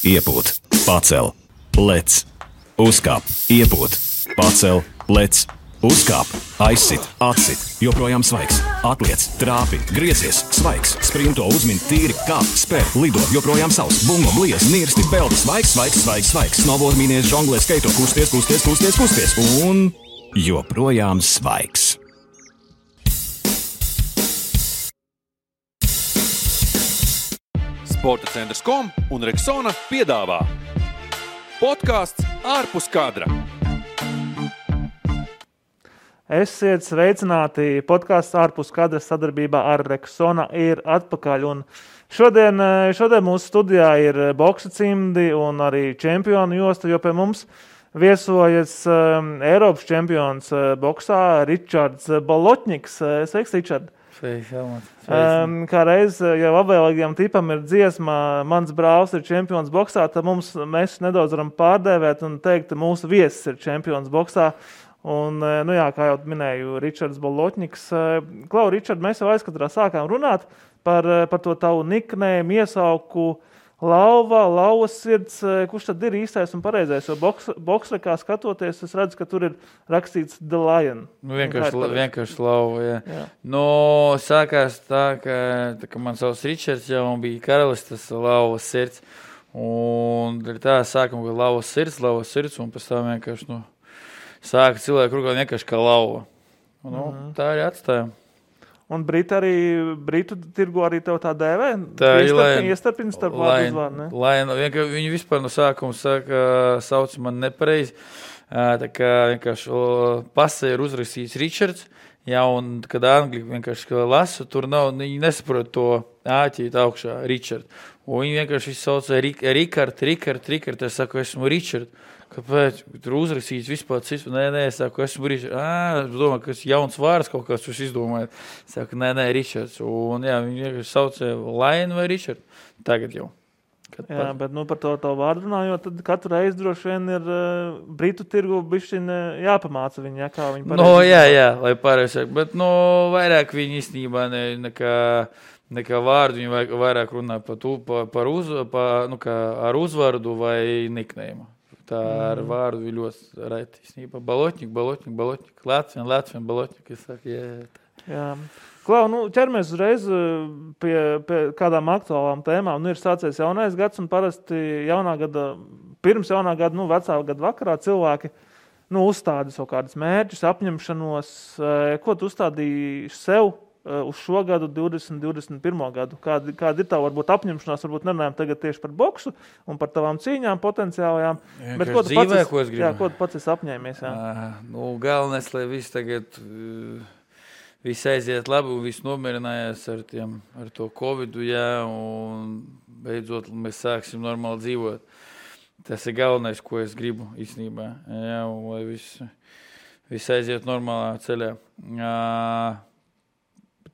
iepūt, pacel, lec, uzkāp, iepūt, pacel, lec, uzkāp, aizsit, atsit, joprojām svaigs, atliec, trāpi, griezies, svaigs, sprinto, uzmin, tīri, kāp, spēr, lido, joprojām savs, bungo, bliez, nirsti, peldi, svaigs, snoboard, mīnies, žonglē, skaito, kusties, un joprojām svaigs. Sporta centrs.com un Rexona piedāvā podcasts ārpus kadra. Esiet sveicināti, podcasts ārpus kadra sadarbībā ar Rexona ir atpakaļ. Un šodien mūsu studijā ir boksa cimdi un arī čempionu josta, jo pie mums viesojas Eiropas čempions boksā Ričards Bolotņiks. Sveiks, Ričard! Kā reiz jau apvēlīgajam tipam ir dziesma Mans brālis ir čempions boksā, tad mēs nedaudz varam pārdēvēt un teikt, ka mūsu viesis ir čempions boksā. Un, kā jau minēju, Ričards Bolotņiks. Klau, Ričard, mēs jau aizkatrā sākām runāt par to tavu niknējumu, iesauku Lauvas sirds. Kurš tad ir īstais un pareizais? Jo boksā, kā skatoties, es redzu, ka tur ir rakstīts The Lion. Vienkārši Lauva, jā. Sākās tā, ka man savs Ričards jau bija karalis, tas Lauvas sirds. Un tā sākam, ka Lauvas sirds, un pēc tam vienkārši, sāka cilvēku rukāt vienkārši kā Lauva. Tā arī atstājām. Un Britu tirgu arī tev tā dēvē? Tā ir Iestarpina starp vārdu uzvārdu, ne? Viņi vispār no sākuma sauc man nepareizi. Tā kā vienkārši pasē ir uzrakstīts Ričards. Jā, un kad angļi vienkārši lasu, tur nav, viņi nesaprot to āķīt augšā Ričard. Un viņi vienkārši sauc Rikard. Es saku, esmu Ričard. Kāpēc? Tur uzrakstīts vispār cits. Nē, es saku, esmu Ričards. Es domāju, ka tas jauns vārds kaut kāds jūs izdomājat. Es saku, nē, Ričards. Un jā, viņi vienkārši saucē Lion vai Ričard. Tagad jau. Bet par to vārdu runājot, tad katru reizi droši vien ir Britu tirgu bišķiņ jāpamāca viņi, kā viņi pareizi. Jā, lai pareizi. Bet vairāk viņi īstenībā nekā vārdu, viņi vairāk runā ar uzvārdu vai niknējumu. Tā ar vārdu ir ļoti reti. Īstenībā Bolotņik, Latvien, Bolotņik, es saku, jā. Klau, ķeramies uzreiz pie kādām aktuālām tēmām. Ir sācies jaunais gads un parasti pirms jaunā gada, vecā gada vakarā cilvēki uzstāda savu kādus mērķus, apņemšanos. Ko tu uzstādīji sev uz šo gadu, 2021. gadu? Kāda ir tā varbūt apņemšanās, varbūt nerunājam tagad tieši par boksu un par tavām cīņām potenciālajām. Bet ko tu pats esi apņēmies? Galvenais, lai viss tagad viss aiziet labi un viss nomierinājās ar to Covidu, un beidzot mēs sāksim normāli dzīvot. Tas ir galvenais, ko es gribu īstenībā, un lai viss aiziet normālā ceļā.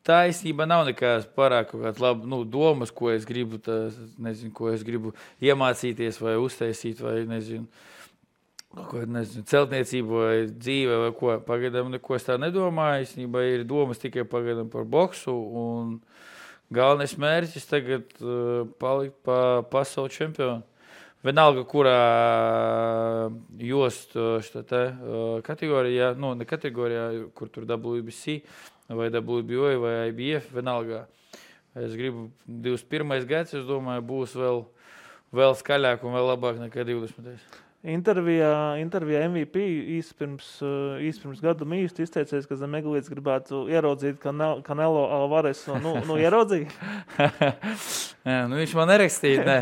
Tā īstenībā nav nekāds pārāk kaut kāds labi, domas, ko es gribu, ko es gribu iemācīties vai uztaisīt, vai celtniecību vai dzīve vai ko. Pagaidām neko es tā nedomāju, īstenībā ir domas tikai pagaidām par boksu, un galvenais mērķis tagad palikt pa pasaules čempionu. Vienalga, kurā jost kategorijā, ne kategorijā, kur tur WBC, vai WBO, vai IBF, vienalga. Es gribu 21. gads, es domāju, būs vēl skaļāk un vēl labāk nekā 20. Intervijā MVP īsti pirms gadu īsti izteicies, ka Zemeglīts gribētu ieraudzīt Canelo Alvaresu. Ieraudzīja? Viņš man nerakstīja, ne.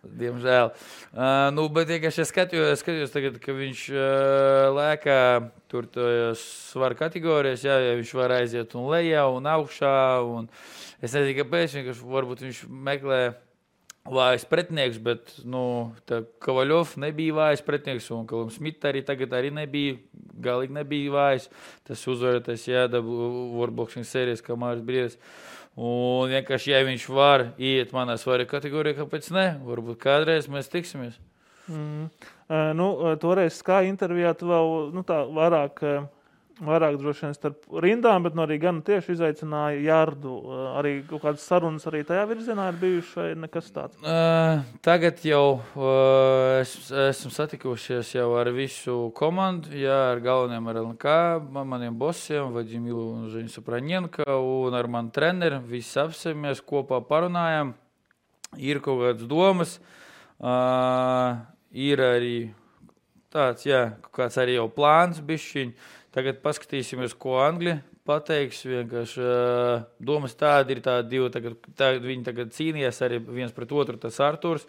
Diemžēl. Bet vienkārši es skatījos tagad, ka viņš lēkā tur svaru kategorijas, ja viņš var aiziet un lejā un augšā. Un es nezinu, kāpēc, varbūt viņš meklē vājas pretinieks, bet Kovaļov nebija vājas pretinieks un Kalam Smita arī tagad arī galīgi nebija vājas. Tas uzvarētais Worldboxing sērijas, kā Māris Briedis. Un vienkārši, ja viņš var iet manā svaru kategorijā, kāpēc ne? Varbūt kādreiz mēs tiksimies. Toreiz Sky intervijā tu vēl vairāk Vairāk droši vien starp rindām, bet arī gan tieši izaicināja Jārdu. Arī kaut kādas sarunas arī tajā virzienā ir bijušas vai nekas tāds? Tagad jau esam satikušies jau ar visu komandu, ar galveniem ar LNK, maniem bosiem, Vadimilu un Žeņu Sapranjenka un ar manu treneri. Visi apsēmies, kopā parunājām. Ir kaut kādas domas, ir arī tāds, kaut kāds arī jau plāns bišķiņ. Tagad paskatīsimies, ko Anglija pateiks. Vienkārši domas tādi ir tādi divi. Viņi tagad cīnījās arī viens pret otru. Tas Arturs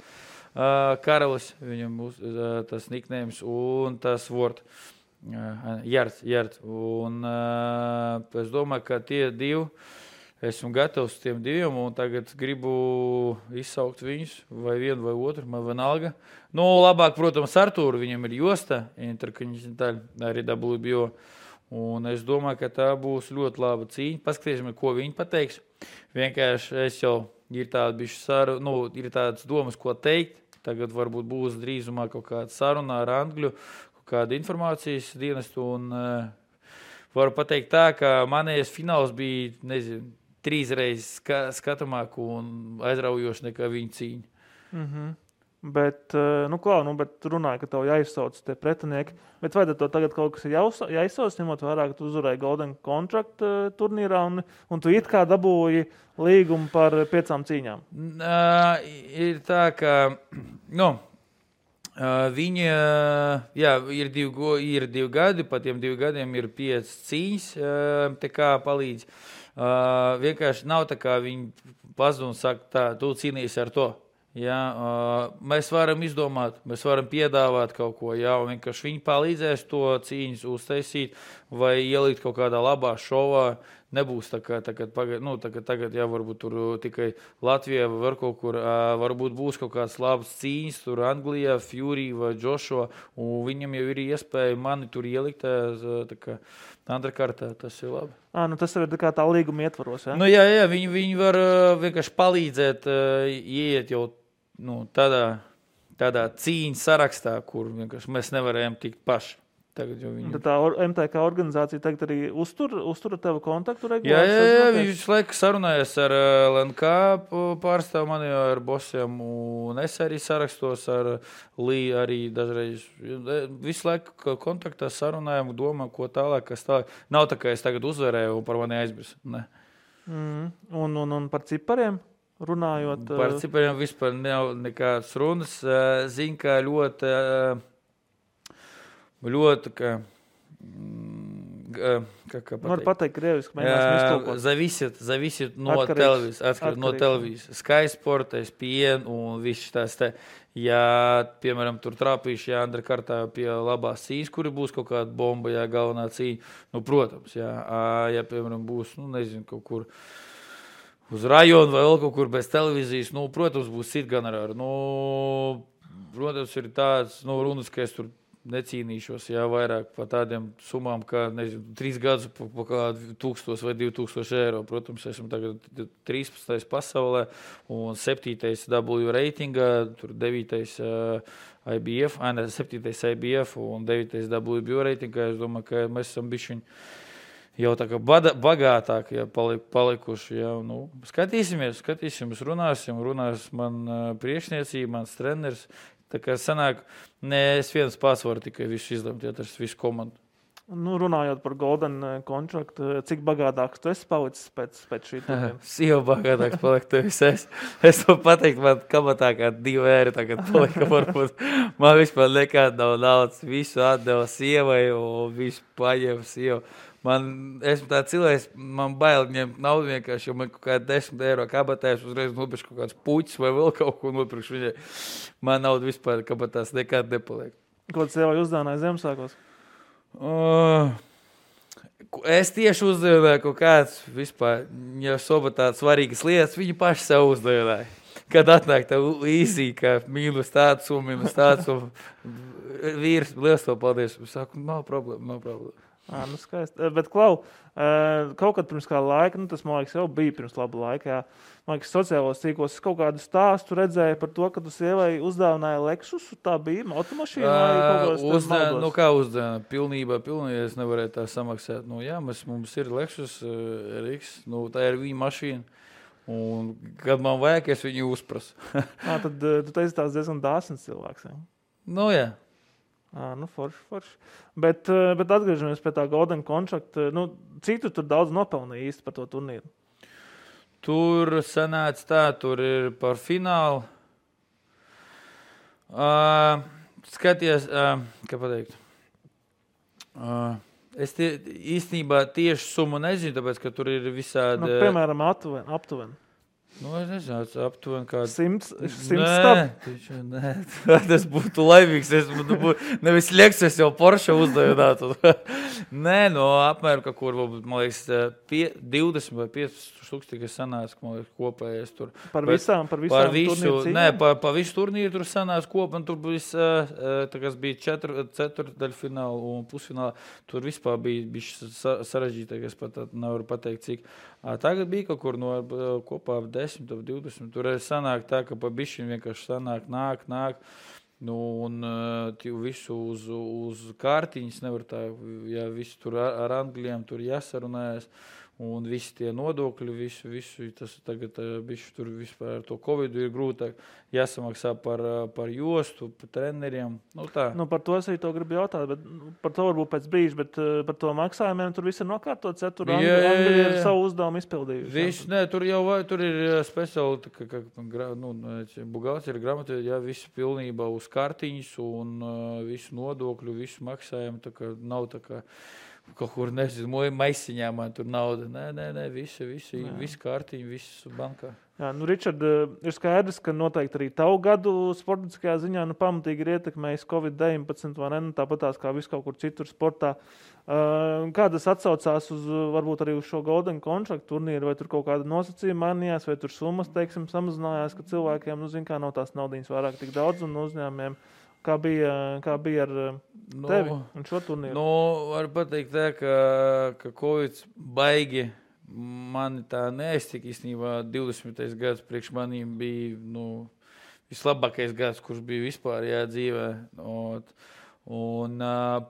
Karalis, viņam tas nicknames, un tas Word. Jards. Un es domāju, ka tie divi, esmu gatavs tiem diviem, un tagad gribu izsaukt viņus, vai vienu vai otru, man vienalga. Labāk, protams, Artūru, viņam ir josta, arī WBO. Un es domāju, ka tā būs ļoti laba cīņa. Paskatīsimies, ko viņi pateiks. Vienkārši es jau ir tādas domas, ko teikt. Tagad varbūt būs drīzumā kaut kāda saruna ar Angļu, kaut kāda informācijas dienestu. Un varu pateikt tā, ka manējais fināls bija, 3 reizes skatāmāk un aizraujoši nekā viņa cīņa. Mhm. Bet runāja, ka tev jāizsauc tie pretinieki. Bet vai to tagad kaut kas ir jāizsauc, ņemot vērā, ka tu uzvarēji Golden Contract turnīrā un tu it kā dabūji līgumu par 5 cīņām? Ir tā, ka viņi, ir 2 gadi, pa tiem 2 gadiem ir 5 cīņas, te kā palīdz. Vienkārši nav tā, kā viņi pazud un saka, tā, tu cīnīsi ar to. Mēs varam izdomāt, mēs varam piedāvāt kaut ko, un vienkārši viņi palīdzēs to cīņas uztaisīt vai ielikt kaut kādā labā šovā. Nebūs tā kā tagad, varbūt tur tikai Latvijā vai var kaut kur, varbūt būs kaut kāds labs cīņas, tur Anglijā, Fury vai Joshua, un viņam jau ir iespēja mani tur ielikt, tā kā underkartā, tas ir labi. Tas ir tā līguma ietvaros, ja? Jā, viņi var vienkārši palīdzēt, ieiet jau tādā cīņas sarakstā, kur vienkārši mēs nevarējām tikt paši. Tā MTK organizācija tagad arī uztura tevu kontaktu regulāri? Jā, viņš laiku sarunājas ar LNK pārstāvu mani, ar bosiem, un es arī sarakstos ar Lī arī dažreiz. Visu laiku kontaktā sarunājam, domājam, ko tālāk, kas tālāk. Nav tā, ka es tagad uzvarēju un par mani aizmirsu. Ne. Un par cipariem? Runājot. Par cipariem vispār nav nekādas runas. Zinu, ka ļoti, kā pateikt krieviski, mēģināsim iztulkot. Зависит no televīzijas, atkarīt no televīzijas. Sky Sport, ESPN un viss tās te. Ja, piemēram, tur trāpīšu, underkartā pie labās cīņas, kuri būs kaut kāda bomba, galvenā cīņa, protams, ja, piemēram, būs, kaut kur uz rajonu vai vēl kaut kur bez televīzijas, protams, būs cita honorāri. Protams, ir tāds, runas, ka es tur necīnīšos, vairāk par tādiem summām, kā, 3 gadus pa kādu 1000 vai 2000 eiro. Protams, esmu tagad 13. pasaulē un 7. W reitingā, tur 9. IBF, 7. IBF un 9. WBO reitingā. Es domāju, ka mēs esam bišķiņ jau tā kā bagātāk palikuši. Skatīsimies, runās man priekšniecība, mans treneris. Tā kā sanāk, es viens pats varu tikai visu izlemt, tas visu komandu. Runājot par Golden Contract, cik bagātāks tu esi palicis pēc šī turnīra? Jau bagātāks paliek tevis es. Es to pateikt, man kabatā kā 2 eiro tagad palika, varbūt man vispār nekāda nav naudas, visu atdeva sievai un visu paņēma sievu. Esmu tāds cilvēks, man bail ņemt naudu vienkārši, jo man kaut kāda 10 eiro kabatā, es uzreiz nopirkšu kaut kāds puķis vai vēl kaut ko nopirkšu viņai. Man naudu vispār kabatās nekāda nepaliek. Ko tu sievai uzdāvināji Ziemassvētkos? Es tieši uzdāvināju kaut kāds vispār, ja soba tādas svarīgas lietas, viņi paši sev uzdāvināja. Kad atnāk tā īsī, ka mīnus tāds un vīrs, liels to paldies. Es saku, nav problēma. Nu skaisti. Bet, Klau, kaut kad pirms kāda laika, tas, man liekas, jau bija pirms laba laika, jā. Man liekas, sociālos tīklos kaut kādu stāstu redzēju par to, ka tu sievai uzdāvināja Lexusu, tā bija automašīna vai kaut kāds maldos? Nu, kā uzdāvināja? Pilnībā, es nevarēju tā samaksāt. Nu, jā, mums ir Lexus RX, tā ir viņa mašīna. Un, kad man vajag, es viņu uzprasu. Tad tu teici tās diezgan dāsns cilvēks, jā? Nu, jā. Forši. Bet atgriežamies pie tā Golden Contract. Cik tu tur daudz nopelnīja īsti par to turnīru? Tur sanāca tā, tur ir par finālu. Skaties, kā pateikt. Es īstenībā tieši summu nezinu, tāpēc, ka tur ir visādi... Piemēram, aptuveni. Es nezinu, aptuveni kādu... 100 stab? Nē, tas būtu laimīgs. Nevis Lexus jau Porsche uzdevinātu. Nē, apmēram, kur, man liekas, 20 vai 15 tūkstoši sanāca, man liekas, kopējais tur. Par visām turnīru cīņām? Nē, par visu turnīru tur sanāca kopā, un tur bija 4 ceturtdaļfināli un pusfināli. Tur vispār bija sarežģītāk, es pat nevaru pateikt, cik. Tagad bija kaut kur kopā 10 vai 20. Tur sanāk tā, ka pa bišķiņ vienkārši sanāk, nāk. Un visu uz kārtiņas nevar tā, ja visu tur ar angļiem tur jāsarunājas. Un visi tie nodokļi, visu tas tagad bišķi tur vispār ar to Covidu ir grūtāk jāsamaksā par jostu, par treneriem. Tā. Par to es arī to gribu jautāt, bet par to varbūt pēc brīža, bet par to maksājumiem tur viss ir nokārtots, ja tur Angļi ir savu uzdevumu izpildījuši. Tur ir speciāli, buhalteri grāmatā, visi pilnībā uz kartiņas un visu nodokļu, visu maksājumu, tā kā nav tā kā kaut kur, nezinu, maisiņā man tur nauda. Nē, visi kārtiņi, viss bankā. Jā, Ričard, ir skaidrs, ka noteikti arī tavu gadu sportiskajā ziņā pamatīgi ir ietekmējis Covid-19, vai ne? Tāpat tās kā viss kaut kur citur sportā. Kā tas atsaucās uz, varbūt arī uz šo Golden Contract turnīru, vai tur kaut kāda nosacījuma mainījās, vai tur summas, teiksim, samazinājās, ka cilvēkiem, nav tās naudiņas vairāk tik daudz un uzņēmumiem. Kā bija ar tevi un šo turnīru? Var pateikt tā, ka Covid baigi mani tā neaiztika īstenībā 20. gads priekš manīm bija vislabākais gads, kurš bija vispār dzīvē. Un,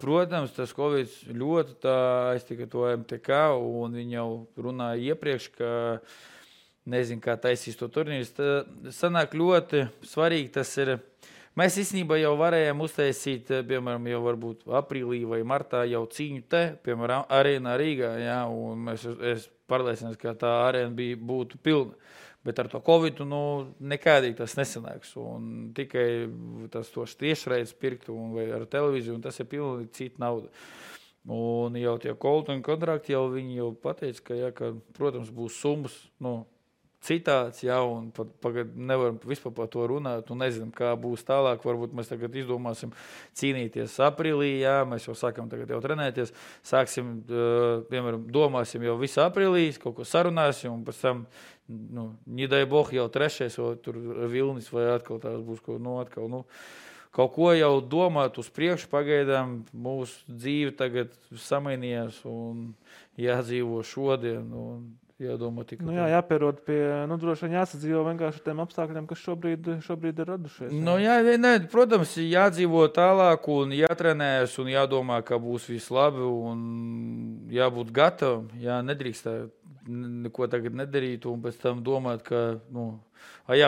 protams, tas Covid ļoti tā aiztika to MTK, un viņi jau runāja iepriekš, ka nezinu, kā taisīs to turnīru. Sanāk ļoti svarīgi tas ir. Mēs īstenībā jau varējām uztaisīt, piemēram, jau varbūt aprīlī vai martā jau cīņu te, piemēram, arēnā Rīgā, jā, un es pārliecināts, ka tā arēna būtu pilna. Bet ar to Covidu, nekādīgi tas nesanāks, un tikai tos tiešraides pirkt vai ar televīziju, un tas ir pilnīgi cita nauda. Un jau tie Golden kontrakti, jau viņi jau pateica, ka protams, būs summas, citāds, un pagad nevaram vispār par to runāt, un nezinām, kā būs tālāk. Varbūt mēs tagad izdomāsim cīnīties aprīlī, mēs jau sākam tagad jau trenēties, sāksim, piemēram, domāsim jau visu aprīlī, kaut ko sarunāsim, un pēc tam, nedai boh, jau 3. vai tur Vilnis, vai atkal tās būs kaut ko jau domāt uz priekšu, pagaidām mūsu dzīve tagad samainījās, un jādzīvo šodien, un jādomā tikai. Jāpierod pie, droši vien jāsadzīvo vienkārši ar tiem apstākļiem, kas šobrīd ir radušies. Protams, jādzīvo tālāk un jātrenējas un jādomā, ka būs viss labi un jābūt gatavam. Nedrīkst neko tagad nedarīt un pēc tam domāt, ka,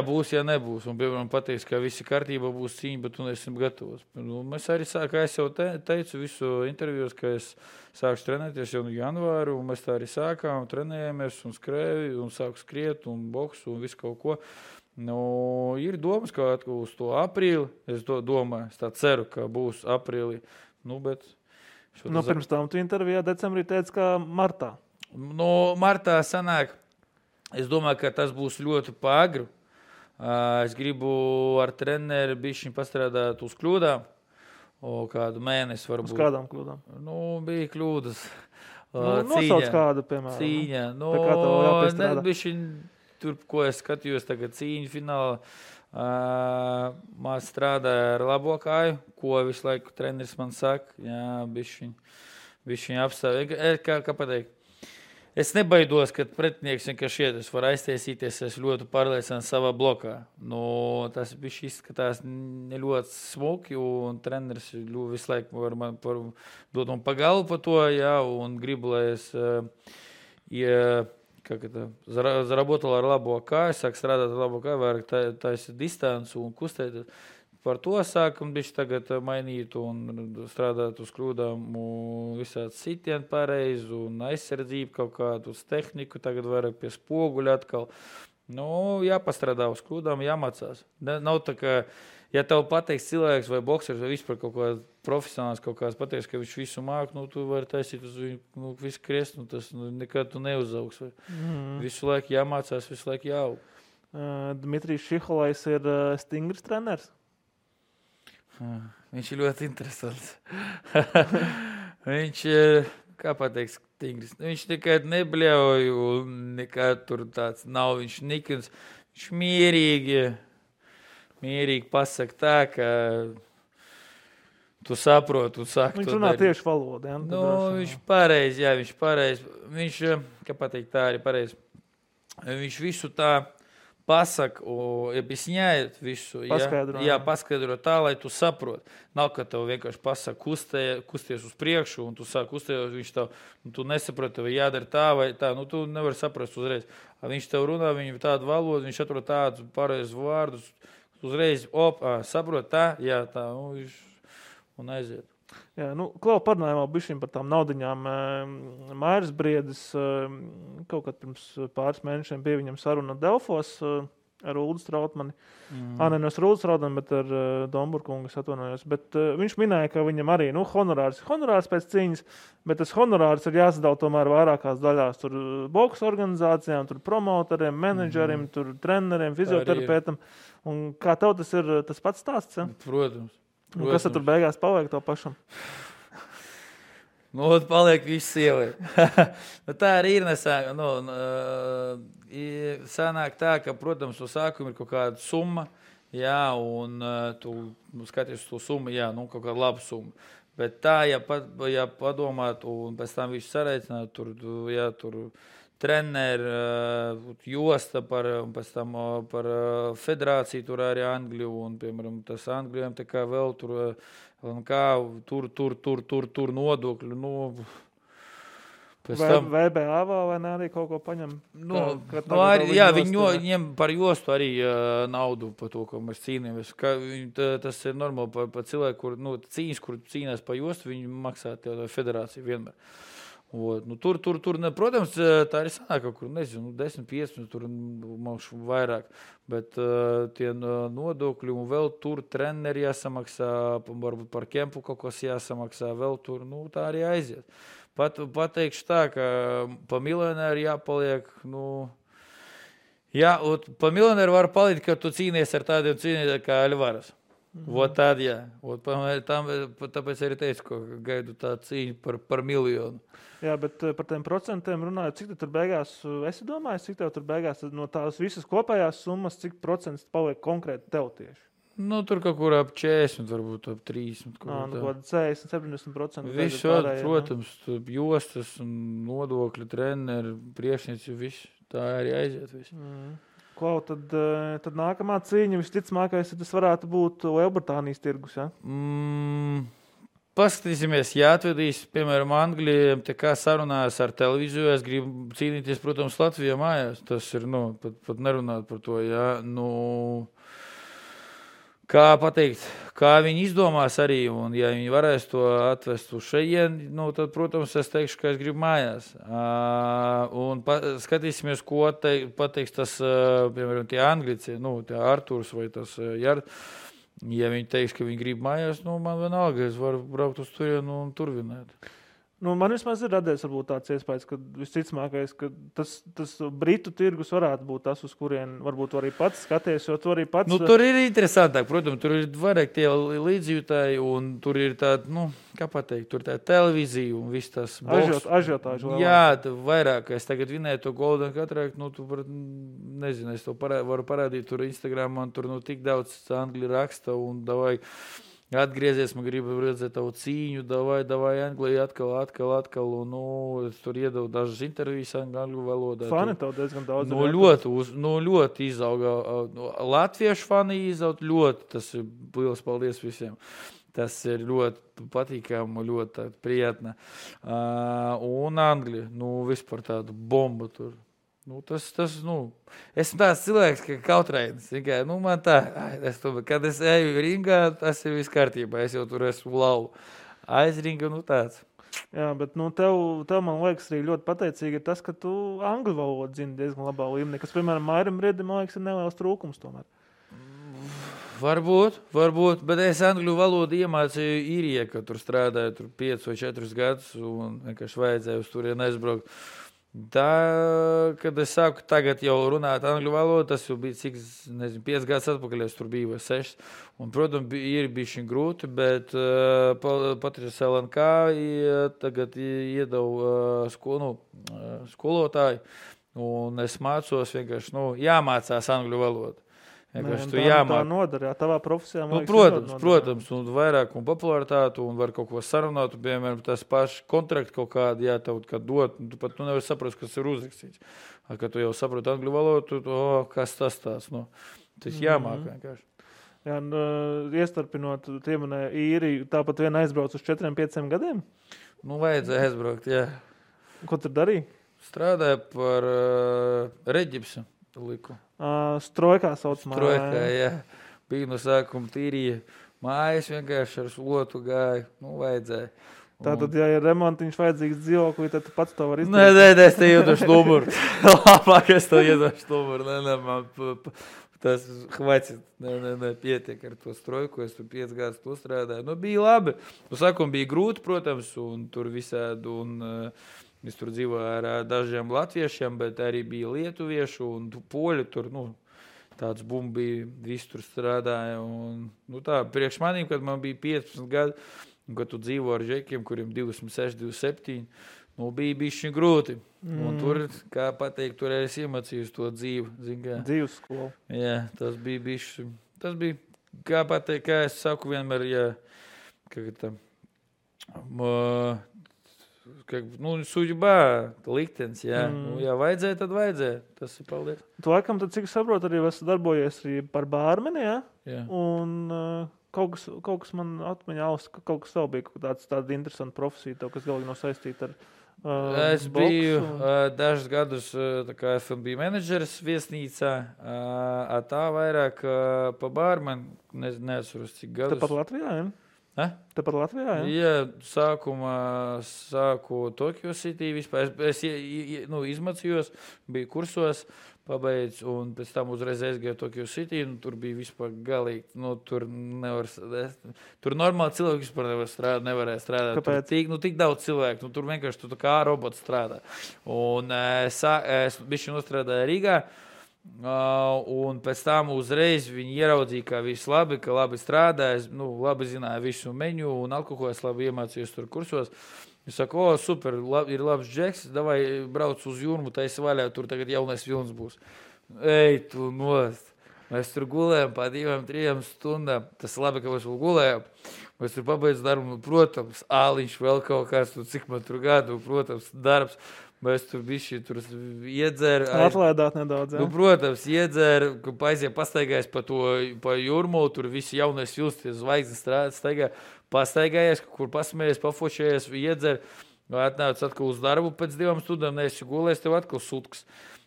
būs, nebūs. Un, piemēram, pateiks, ka visi kārtībā būs cīņa, bet tu neesam gatavos. Mēs arī kā es jau teicu visu intervijos, ka es sākšu trenēties jau janvāru, un mēs tā arī sākām, trenējamies un skrēju, un sāku skriet, un boksu, un visu kaut ko. Ir domas, ka uz to aprīli, es domāju, es tā ceru, ka būs aprīlī. Bet pirms tam tu intervijā decembrī teici, ka martā. Martā sanāk, es domāju, ka tas būs ļoti pāgru. Es gribu ar treneri bišķiņ pastrādāt uz kļūdām. Kādu mēnesi varbūt. Uz kādām kļūdām? Bija kļūdas. Nosauc kādu, piemēram. Cīņa. Bišķiņ, tur, ko es skatījos tagad cīņu finālā, man strādāja ar labo kāju, ko visu laiku treneris man saka. Bišķiņ. Viņš viņu apstāv. Kā pateikt? Es nebaidos, ka pretinieks vienkārši iet. Es varu aiztaisīties, es ļoti pārliecināts savā blokā. Tas bija izskatās ne ļoti smuki, un treneris visu laiku var man dot man pagalvu par to, jā, un gribu, lai es заработал ar labo kāju, sāk strādāt ar labo kāju, vairāk taisa distanci un kustēt. Par to sākam bišķi tagad mainīt un strādāt uz kļūdām, visādi sitieni pareizi un aizsardzību kaut kādu uz tehniku, tagad vairāk pie spoguļa atkal. Jāpastrādā uz kļūdām, jāmācās. Nav tā, ka, ja tev pateiks cilvēks vai boksers vai vispār kaut kāds profesionāls kaut kāds pateiks, ka viņš visu māk, tu vari taisīt uz viņu visu kriest, tas nekad tu neuzaugs. Visu laiku jāmācās, visu laiku jāaug. Dmitrijs Šiholais ir stingrs treneris. Viņš ir ļoti interesants. Viņš, kā pateiks, stingrs. Viņš nekad nebļauj un nekad tur tāds nav. Viņš nikins. Viņš mierīgi pasaka tā, ka tu saproti un saki. Viņš runā tieši valodu. Ja? Viņš pareizi, jā, viņš pareizi. Viņš, kā pateikt, tā arī pareizi. Viņš visu tā pasaka, объясняет visu. Paskaidro tā, lai tu saproti. Nav, ka tev vienkārši pasaka kusties uz priekšu, un tu sāk kustēt, viņš tev, tu nesaproti, vai jādara tā vai tā. Tu nevari saprast uzreiz. Viņš tev runā, viņam tādu valodu, viņš atrod tādus pareizus vārdus, uzreiz, saprot tā, jā, tā, un aiziet. Jā, Klau, parunājumā bišķiņ par tām naudiņām. Mairis Briedis kaut kad pirms pāris mēnešiem bija viņam saruna Delfos ar Uldu Strautmani. Nevis ar Uldu Strautmani, bet ar Domburkungu, es atvainojos. Bet viņš minēja, ka viņam arī honorārs pēc cīņas, bet tas honorārs ir jāsadala tomēr vairākās daļās. Tur boks organizācijām, tur promotoriem, menedžeriem, tur treneriem, fizioterapeitam. Un kā tev tas ir tas pats stāsts? Ja? Protams. Kas tur beigās paliek to pašam? Paliek viss sievai. Tā arī ir nesāk. Sanāk tā, ka, protams, uz sākumu ir kaut kāda summa, jā, un tu skaties uz to summu, jā, kaut kāda laba summa. Bet tā, ja padomāt, un pēc tam viņš sareicināt, tur treneri, josta un pēc tam par federāciju tur arī Angliju, un, piemēram, tas Anglijam tā kā vēl tur nodokļu, VBA vai ne arī kaut ko paņem? Viņiem par jostu arī naudu par to, ko mēs cīnāmies. Tas ir normāli par cilvēku, kur cīnās par jostu, viņi maksā tev federāciju vienmēr. Tur, protams, tā arī sanāk kaut kur, 10-15, tur maukšu vairāk, bet tie nodokļi un vēl tur treneri jāsamaksā, varbūt par kempu kaut kas jāsamaksā, vēl tur, tā arī aiziet. Pateikšu tā, ka pa miljonēru jāpaliek, pa miljonēru var palikt, ka tu cīnies ar tādiem cīnītājiem kā Alvaras. Tad, jā. Tāpēc arī teicu, ka gaidu tā cīņu par miljonu. Jā, bet par tiem procentiem runājot, cik tur beigās, esi domājis, cik tev tur beigās no tās visas kopējās summas, cik procents paliek konkrēti tev tieši? Tur kaut kur ap 40, varbūt ap 30. Kaut 40-70%. Visu, protams, jostas, nodokļi, treneri, priekšnieci, viss. Tā arī aiziet viss. Klau, tad nākamā cīņa visticamākais, tas varētu būt Lielbritānijas tirgus, ja? Paskatīsimies, atvedīs, piemēram, Anglijiem, kā sarunājas ar televīziju, es gribu cīnīties, protams, Latvijā mājās. Tas ir, pat nerunāt par to, jā. Kā pateikt, kā viņi izdomās arī, un ja viņi varēs to atvest uz šeien, tad, protams, es teikšu, ka es gribu mājās. Un skatīsimies, ko pateiks tas, piemēram, tie Anglici, tie Arturs vai tas Jard. Ja viņi teiks, ka viņi grib mājās, man vienalga, es varu braukt uz turienu un tur vinēt. Man vismaz ir radies varbūt tāds iespējas, ka visticamākais, ka tas Britu tirgus varētu būt tas, uz kurien varbūt arī pats skaties, jo tu arī pats... Tur ir interesantāk, protams, tur ir vairāk tie līdzjūtāji, un tur ir tāda, kā pateikt, tur tā televīzija un viss tas boks. Ažiotāži. Jā, vairāk, es tagad vinēju to Golden Catarakt, tu nezinu, es to varu parādīt tur Instagram, man tur tik daudz Angļu raksta, un davai... atgriezies, man gribu redzēt tavu cīņu, davai Anglija atkal, un, es tur iedevu dažas intervijas angļu valodā. Fani tev diezgan daudz. Ļoti izauga. Latviešu fani izaut ļoti, tas ir liels paldies visiem. Tas ir ļoti patīkami, ļoti prietna. Un Anglija, vispār tāda bomba tur. Esmu tāds cilvēks, ka kautrainis. Man tā, kad es eju ringā, tas ir viss kārtībā. Es jau tur esmu lauva. Aizringa, tāds. Jā, bet tev man liekas arī ļoti pateicīgi ir tas, ka tu angļu valodu zini diezgan labā līmenī, kas, piemēram, Mairam Riedim, man liekas, ir neliels trūkums tomēr. Varbūt, bet es angļu valodu iemācīju īrijā, kad tur strādāju 5 vai 4 gadus un vienkārši vajadzēja uz turieni aizbraukt. Tā, kad es sāku tagad jau runāt angļu valodu, tas jau bija 5 gadus atpakaļ, es tur biju vai 6. Un, protams, ir bijuši grūti, bet Patris LNK tagad iedevu skolotāju, un es mācos vienkārši, jāmācās angļu valodu. Tā nodara, tavā profesijā. Protams, un vairāk un popularitātu, un var kaut ko sarunāt, piemēram, tas paši kontrakti kaut kādi, tev kad dot, tu pat nevar saprast, kas ir uzrakstīts. Kad tu jau saproti angļu valodu, kas tas tās, tas jāmāk vienkārši. Jā, iestarpinot, tiemanē īriju, tāpat vien aizbrauc uz 4-5 gadiem? Vajadzēja aizbraukt, jā. Ko tur darīja? Strādāja par reģipsu liku. Strojkā saucamā. Strojkā, jā. Bija no sākuma tīrīja mājas, vienkārši ar slotu gāja. Vajadzēja. Tātad, ja ir remontiņš vajadzīgs dzīvoklī, tad tu pats to var izdarīt? Nē, es te iedošu numuru. Labāk es to iedošu numuru. Nē, man tas hvaicit. Nē, pietiek ar to strojku. Es tur 5 gadus to strādāju. Bija labi. No sākuma bija grūti, protams, un tur visādi, un es tur dzīvoju ar dažiem latviešiem, bet arī bija lietuviešu un poļi tur, tāds bumba bija, visi tur strādāja. Un, tā, priekš manīm, kad man bija 15 gadi, un kad tu dzīvo ar žekiem, kuriem 26, 27, bija bišķi grūti. Un tur, kā pateikt, tur es iemācījos to dzīvi. Dzīves skolu. Jā, tas bija bišķi. Tas bija, kā pateikt, kā es saku vienmēr, suģibā, liktenis, jā. Ja vajadzēja, tad vajadzēja. Tas ir paldies. Tu laikam, tad, cik saprotu, arī esi darbojies arī par bārmeni, jā? Jā. Un kaut kas man atmiņā kaut kas vēl bija, tāda interesanta profesija, tev, kas galīgi nav saistīta ar es biju dažus gadus kā F&B menedžeris viesnīcā, tā vairāk pa bārmeni, neatceros, cik gadus. Tepat Latvijā, jā? Tepat Latvijā, jā? Jā, sākumā sāku Tokyo City vispār. Es izmācījos, biju kursos, pabeidz, un pēc tam uzreiz aizgāju Tokyo City, un tur bija vispār galīgi. Tur normāli cilvēki vispār nevarēja strādāt. Kāpēc? Tur tik daudz cilvēku, tur vienkārši tu kā robots strādā. Un es bišķi nostrādāju Rīgā. Un pēc tam uzreiz viņi ieraudzīja, ka viss labi, ka labi strādājas, labi zināja visu menu un alkoholu, es labi iemācījos tur kursos. Es saku, super, ir labs džeks, davai brauc uz Jūrmu, taisi vaļā, tur tagad jaunais vilns būs. Ej, tu nost. Mēs tur gulējam pa 2-3 stundām. Tas labi, ka mēs vēl gulējam. Mēs tur pabeidz darbu, protams, āliņš vēl kaut kāds, cik man tur gadu, protams, darbs. Mēs tur bišķi iedzēru. Atlaidāt nedaudz, jā? Protams, iedzēru, pastaigājies pa Jūrmu, tur visi jaunais vilns, tie zvaigznes staigā, pastaigājies, kur pasmējies, pafošējies, iedzēru, atnāc atkal uz darbu pēc 2 stundām, neesi gulējis, tev atkal sutkas.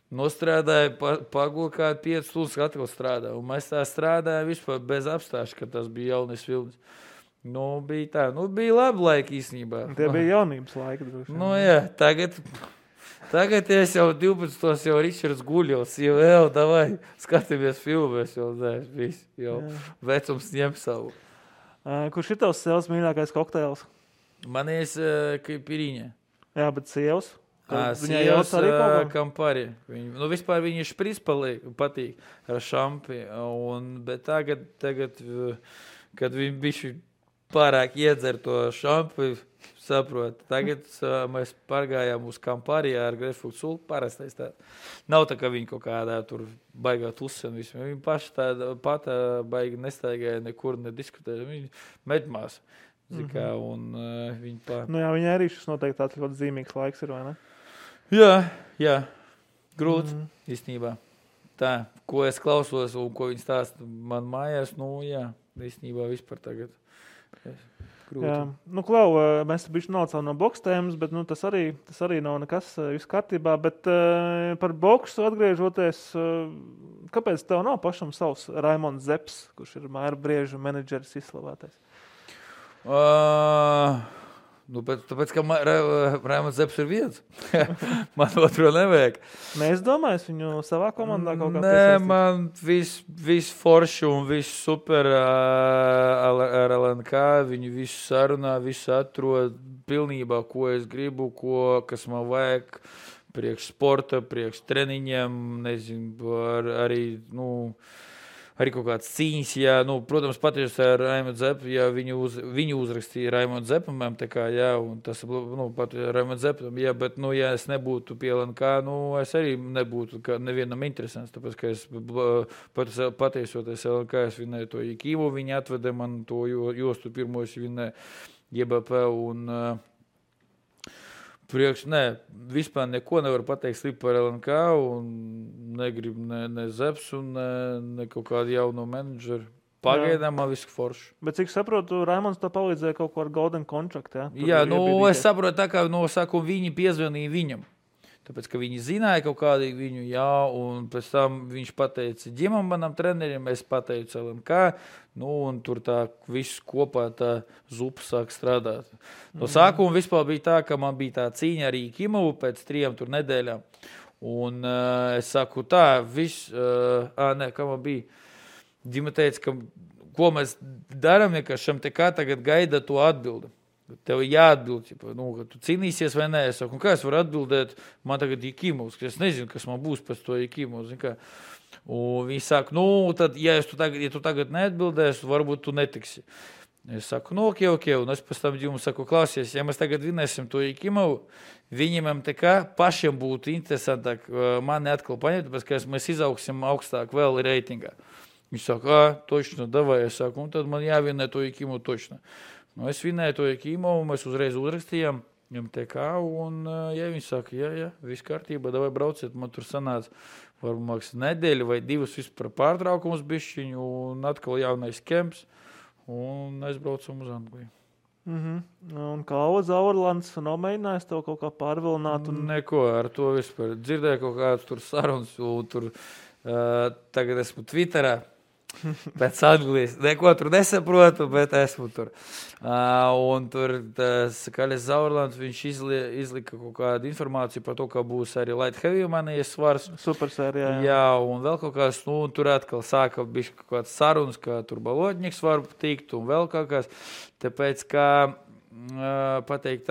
Nostrādāja, pagula kādu 5 stundas, atkal strādā. Un mēs tā strādājām vispār bez apstāšu, ka tas bija jaunais vilns. Bija tā. Bija labi laiki īstenībā. Tie bija jaunības laiki. Jā, tagad es jau 12. jau Ričards guļos, jau davai, skatāmies filmēs, jau vecums ņem savu. Kurš ir tavs sievas mīļākais kokteils? Manies Kaipiriņa. Jā, bet sievas? Sievas Kampari. Vispār viņa špris patīk ar šampi, bet tagad, kad viņi bišķi pārāk iedzer to šampi, Saprotu. Tagad mēs pārgājām uz Kampārijā ar Grefuktu Sulu. Parastais tā. Nav tā, ka viņi kaut kādā tur baigā tusi un visu. Viņi paši tāda pata baigi nestaigāja nekur, nediskutēja. Viņi medmās. Zikā, un viņi Nu jā, viņai arī šis noteikti tāds ļoti zīmīgs laiks ir, vai ne? Jā. Grūts, īstenībā. Tā, ko es klausos un ko viņi stāsta man mājās, īstenībā vispār tagad. Grūti. Jā. Nu, Klau, mēs bišķi nocām no boks tēmas, bet tas arī nav nekas viss kārtībā. Bet par boksu atgriežoties, kāpēc tev nav pašam savs Raimonds Zeps, kurš ir Māra Brieža menedžeris izslavētais? Tāpēc, ka Raimonds Zeps ir viens. Man otro nevajag. Mēs domājam, viņu savā komandā kaut kā piesaistīt? Nē, man viss forši un viss super ar LNK. Viņi visu sarunā, visu atrod pilnībā, ko es gribu, kas man vajag priekš sporta, priekš treniņiem, nezinu, arī kaut kāds cīņas, protams, patieši ar Raimondu Zepu, viņu uzrakstīja Raimondu Zepam, un tas, pat Raimondu Zepam, bet, ja es nebūtu pie LNK, es arī nebūtu nevienam interesants, tāpēc, ka es patiesoties LNK, es vinēju to Ikīvu, viņi atveda man to jostu pirmo, es vinēju JBP un vispār neko nevaru pateikt slikti par LNK un negribu ne Zeps un ne kaut kādu jauno menedžeru. Pagaidām man viss forši. Bet cik saprotu, Raimonds tā palīdzēja kaut ko ar Golden Contract, ja? Jā, es saprotu tā, kā no sākuma viņi piezvanīja viņam. Tāpēc, ka viņi zināja kaut kādīgi viņu, un pēc tam viņš pateica ģimam manam trenerim, es pateicu LNK, un tur tā viss kopā tā zupa sāk strādāt. No sākuma vispār bija tā, ka man bija tā cīņa arī Kimavu pēc 3 nedēļām. Un es saku tā, kā man bija, ģima teica, ka ko mēs darām, ka šam te kā tagad gaida to atbildi. Tev jāatbild, ka tu cīnīsies vai nē. Es saku, kā es varu atbildēt, man tagad ir Kimovs, ka es nezinu, kas man būs pēc to Kimovs. Un viņi saka, tad, ja tu tagad neatbildēsi, varbūt tu netiksi. Es saku, ok. Un es pēc tam jums saku, klausies, ja mēs tagad vinēsim to Kimovu, viņiem te kā pašiem būtu interesantāk mani atkal paņemt, tāpēc, ka mēs izaugsim augstāk vēl reitingā. Viņš saka, točno, davai. Es saku, un tad man jāvinē to Kimovu točno. Es vinēju to Kimovu, mēs uzreiz uzrakstījām MTK, un viņi saka, jā, viss kārtībā, davai brauciet, man tur sanāca varbūt nedēļa vai 2 vispār pārtraukums bišķiņu, un atkal jaunais kemps, un aizbraucam uz Angliju. Un kā Zaurlands nomēģinājis tev kaut kā pārvilināt? Neko, ar to vispār. Dzirdēju kaut kādas tur sarunas, un tur tagad esmu Twitterā. Pēc Anglijas. Neko tur nesaprotu, bet esmu tur. Un tur Kaļas Zaurlands, viņš izlika kaut kādu informāciju par to, ka būs arī light heavy manijas svars. Supersērijā. Jā, un vēl kaut kāds, tur atkal sāka bišķi kaut kāds sarunas, ka tur balotņiks var tikt un vēl kaut kāds. Tāpēc, kā pateikt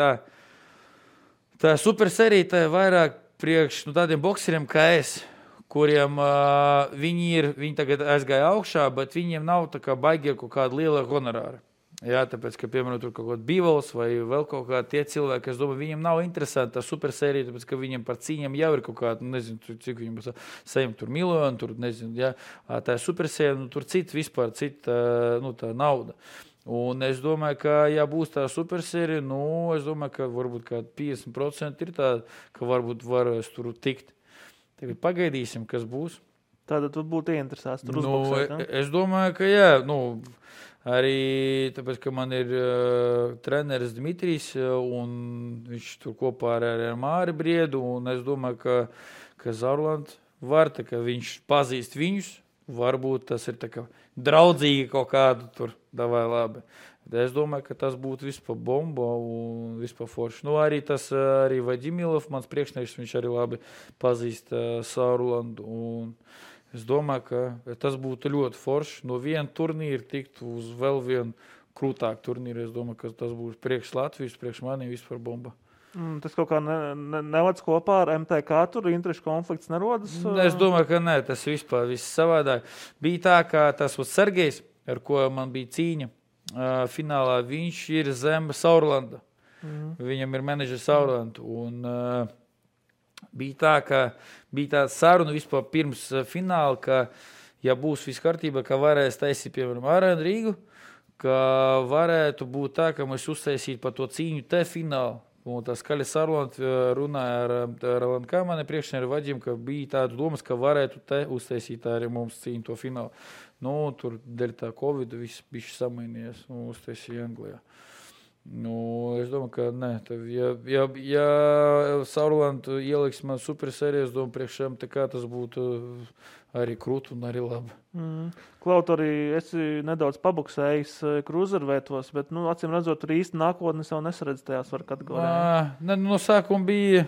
tā supersērija tā ir vairāk priekš tādiem bokseriem kā es, kuriem viņi tagad aizgāja augšā, bet viņiem nav tā kā baigi kaut kāda liela honorāra. Jā, tāpēc, ka, piemēram, tur kaut kāds Bivals vai vēl kaut kādi tie cilvēki, es domāju, viņiem nav interesanti tā supersērija, tāpēc, ka viņiem par cīņām jau ir kaut kāda, nezinu, cik viņiem saņem tur miljonu, tur, nezinu, jā, tā supersērija, tur vispār cita, tā nauda. Un es domāju, ka, ja būs tā supersērija, es domāju, ka varbūt kā 50% ir tā, ka varbūt varēs tur tikt. Tagad pagaidīsim, kas būs. Tātad tu būtu ieinteresēts tur uzboksēt, ne? Es domāju, ka jā. Arī tāpēc, ka man ir treneris Dmitrijs, un viņš tur kopā ar Māri Briedu, un es domāju, ka Zaurlands var, tā kā viņš pazīst viņus, varbūt tas ir tā kā draudzīgi kaut kādu tur, davai labi. Es domāju, ka tas būtu vispār bomba un vispār forši. Arī tas arī Vadimilov, mans priekšnieks, viņš arī labi pazīst Zaurlandu. Un es domāju, ka tas būtu ļoti forši. No viena turnīra tikt uz vēl vienu krūtāku turnīru. Es domāju, ka tas būs priekš Latvijas, priekš manī vispār bomba. Tas kaut kā nevadz kopā ar MTK, tur interešu konflikts nerodas? Es domāju, ka nē, tas vispār viss savādāk. Bija tā, ka tas Sergejs, ar ko man bija cīņa, finālā viņš ir zem Zaurlanda. Viņam ir menedžers Sauerland. Un bija tā saruna vispār pirms fināla, ka, ja būs viss kārtībā, ka varēs taisīt, piemēram, Arēnu Rīgu, ka varētu būt tā, ka mēs uztaisītu par to cīņu te finālu. Un tā skaļa saruna runāja ar LNK mani priekšnieru Vaģim, ka bija tāda domas, ka varētu te uztaisīt arī mums cīņu to finālu. Nu, tur dēļ tā Covid viss bišķi samainījies un uztaisīja Anglijā. Nu, es domāju, ka ne. Ja Sauerland ieliks man supersērijas, domāju, priekšējām, tā kā tas būtu arī krūti un arī labi. Klaut, arī esi nedaudz pabuksējis kruzervētos, bet, acīm redzot, tur īsti nākotnes jau nesaredz tajās var kategorijā. No sākuma bija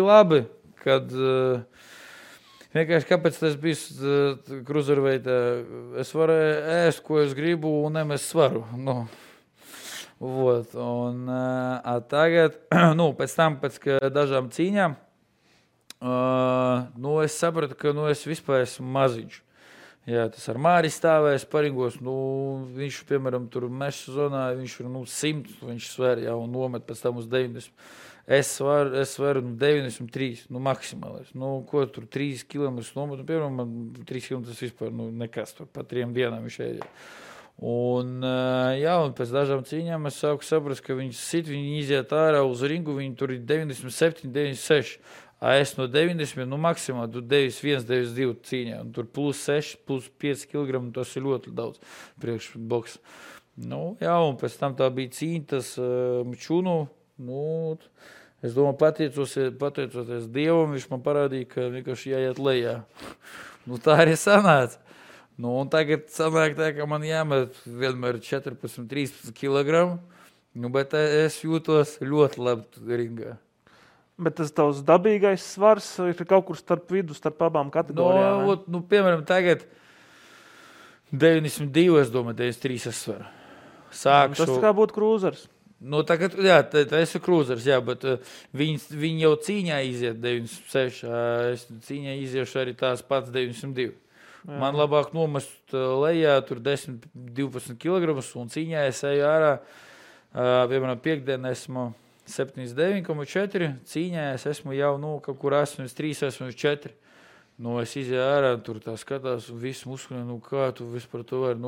labi, kad vienkārši kāpēc tas bija kruzerveitā. Es varēju ēst, ko es gribu, un nemest svaru. Vot, un tagad, pēc tam, pēc dažām cīņām, es sapratu, ka es vispār esmu maziņš. Jā, tas ar Māri stāvēs paringos, viņš, piemēram, tur meša zonā, viņš ir 100, viņš sver, jā, un nomet pēc tam uz 90. Es sveru 93, maksimālais. Ko tur 3 kilometrus nomet, piemēram, man 3 kilometrus vispār, nekas tur, pa 3 dienām viņš ēdja. Un pēc dažām cīņām es sāku saprast, ka viņi iziet ārā uz ringu, viņi tur ir 97, 96. Es no 90, maksimāli, tur 91, 92 cīņā, un tur plus 6, plus 5 kg, tas ir ļoti daudz priekš boks. Un pēc tam tā bija cīņa, tas Čunu, es domāju, pateicoties Dievam, viņš man parādīja, ka vienkārši jāiet lejā. Tā arī sanāca. Un tagad sanāk tā, ka man jāmet vienmēr 14-13 kg, bet es jūtos ļoti labi ringā. Bet tas tavs dabīgais svars ir kaut kur starp vidu, starp abām kategorijām? Piemēram, tagad 92, es domāju, 93 es svaru. Tas kā būtu krūzers. Tagad, jā, tas ir krūzers, jā, bet viņi jau cīņā iziet 96, es cīņā iziešu arī tās pats 92. Jā. Man labāk nomest lejā tur 10-12 kg un cīņā es eju ārā, piemēram, piekdien esmu 79,4, cīņā es esmu jau, kaut kur 83, 84. Es izēju ārā, tur tā skatās, un viss muskuļi, kā tu vispār to vari,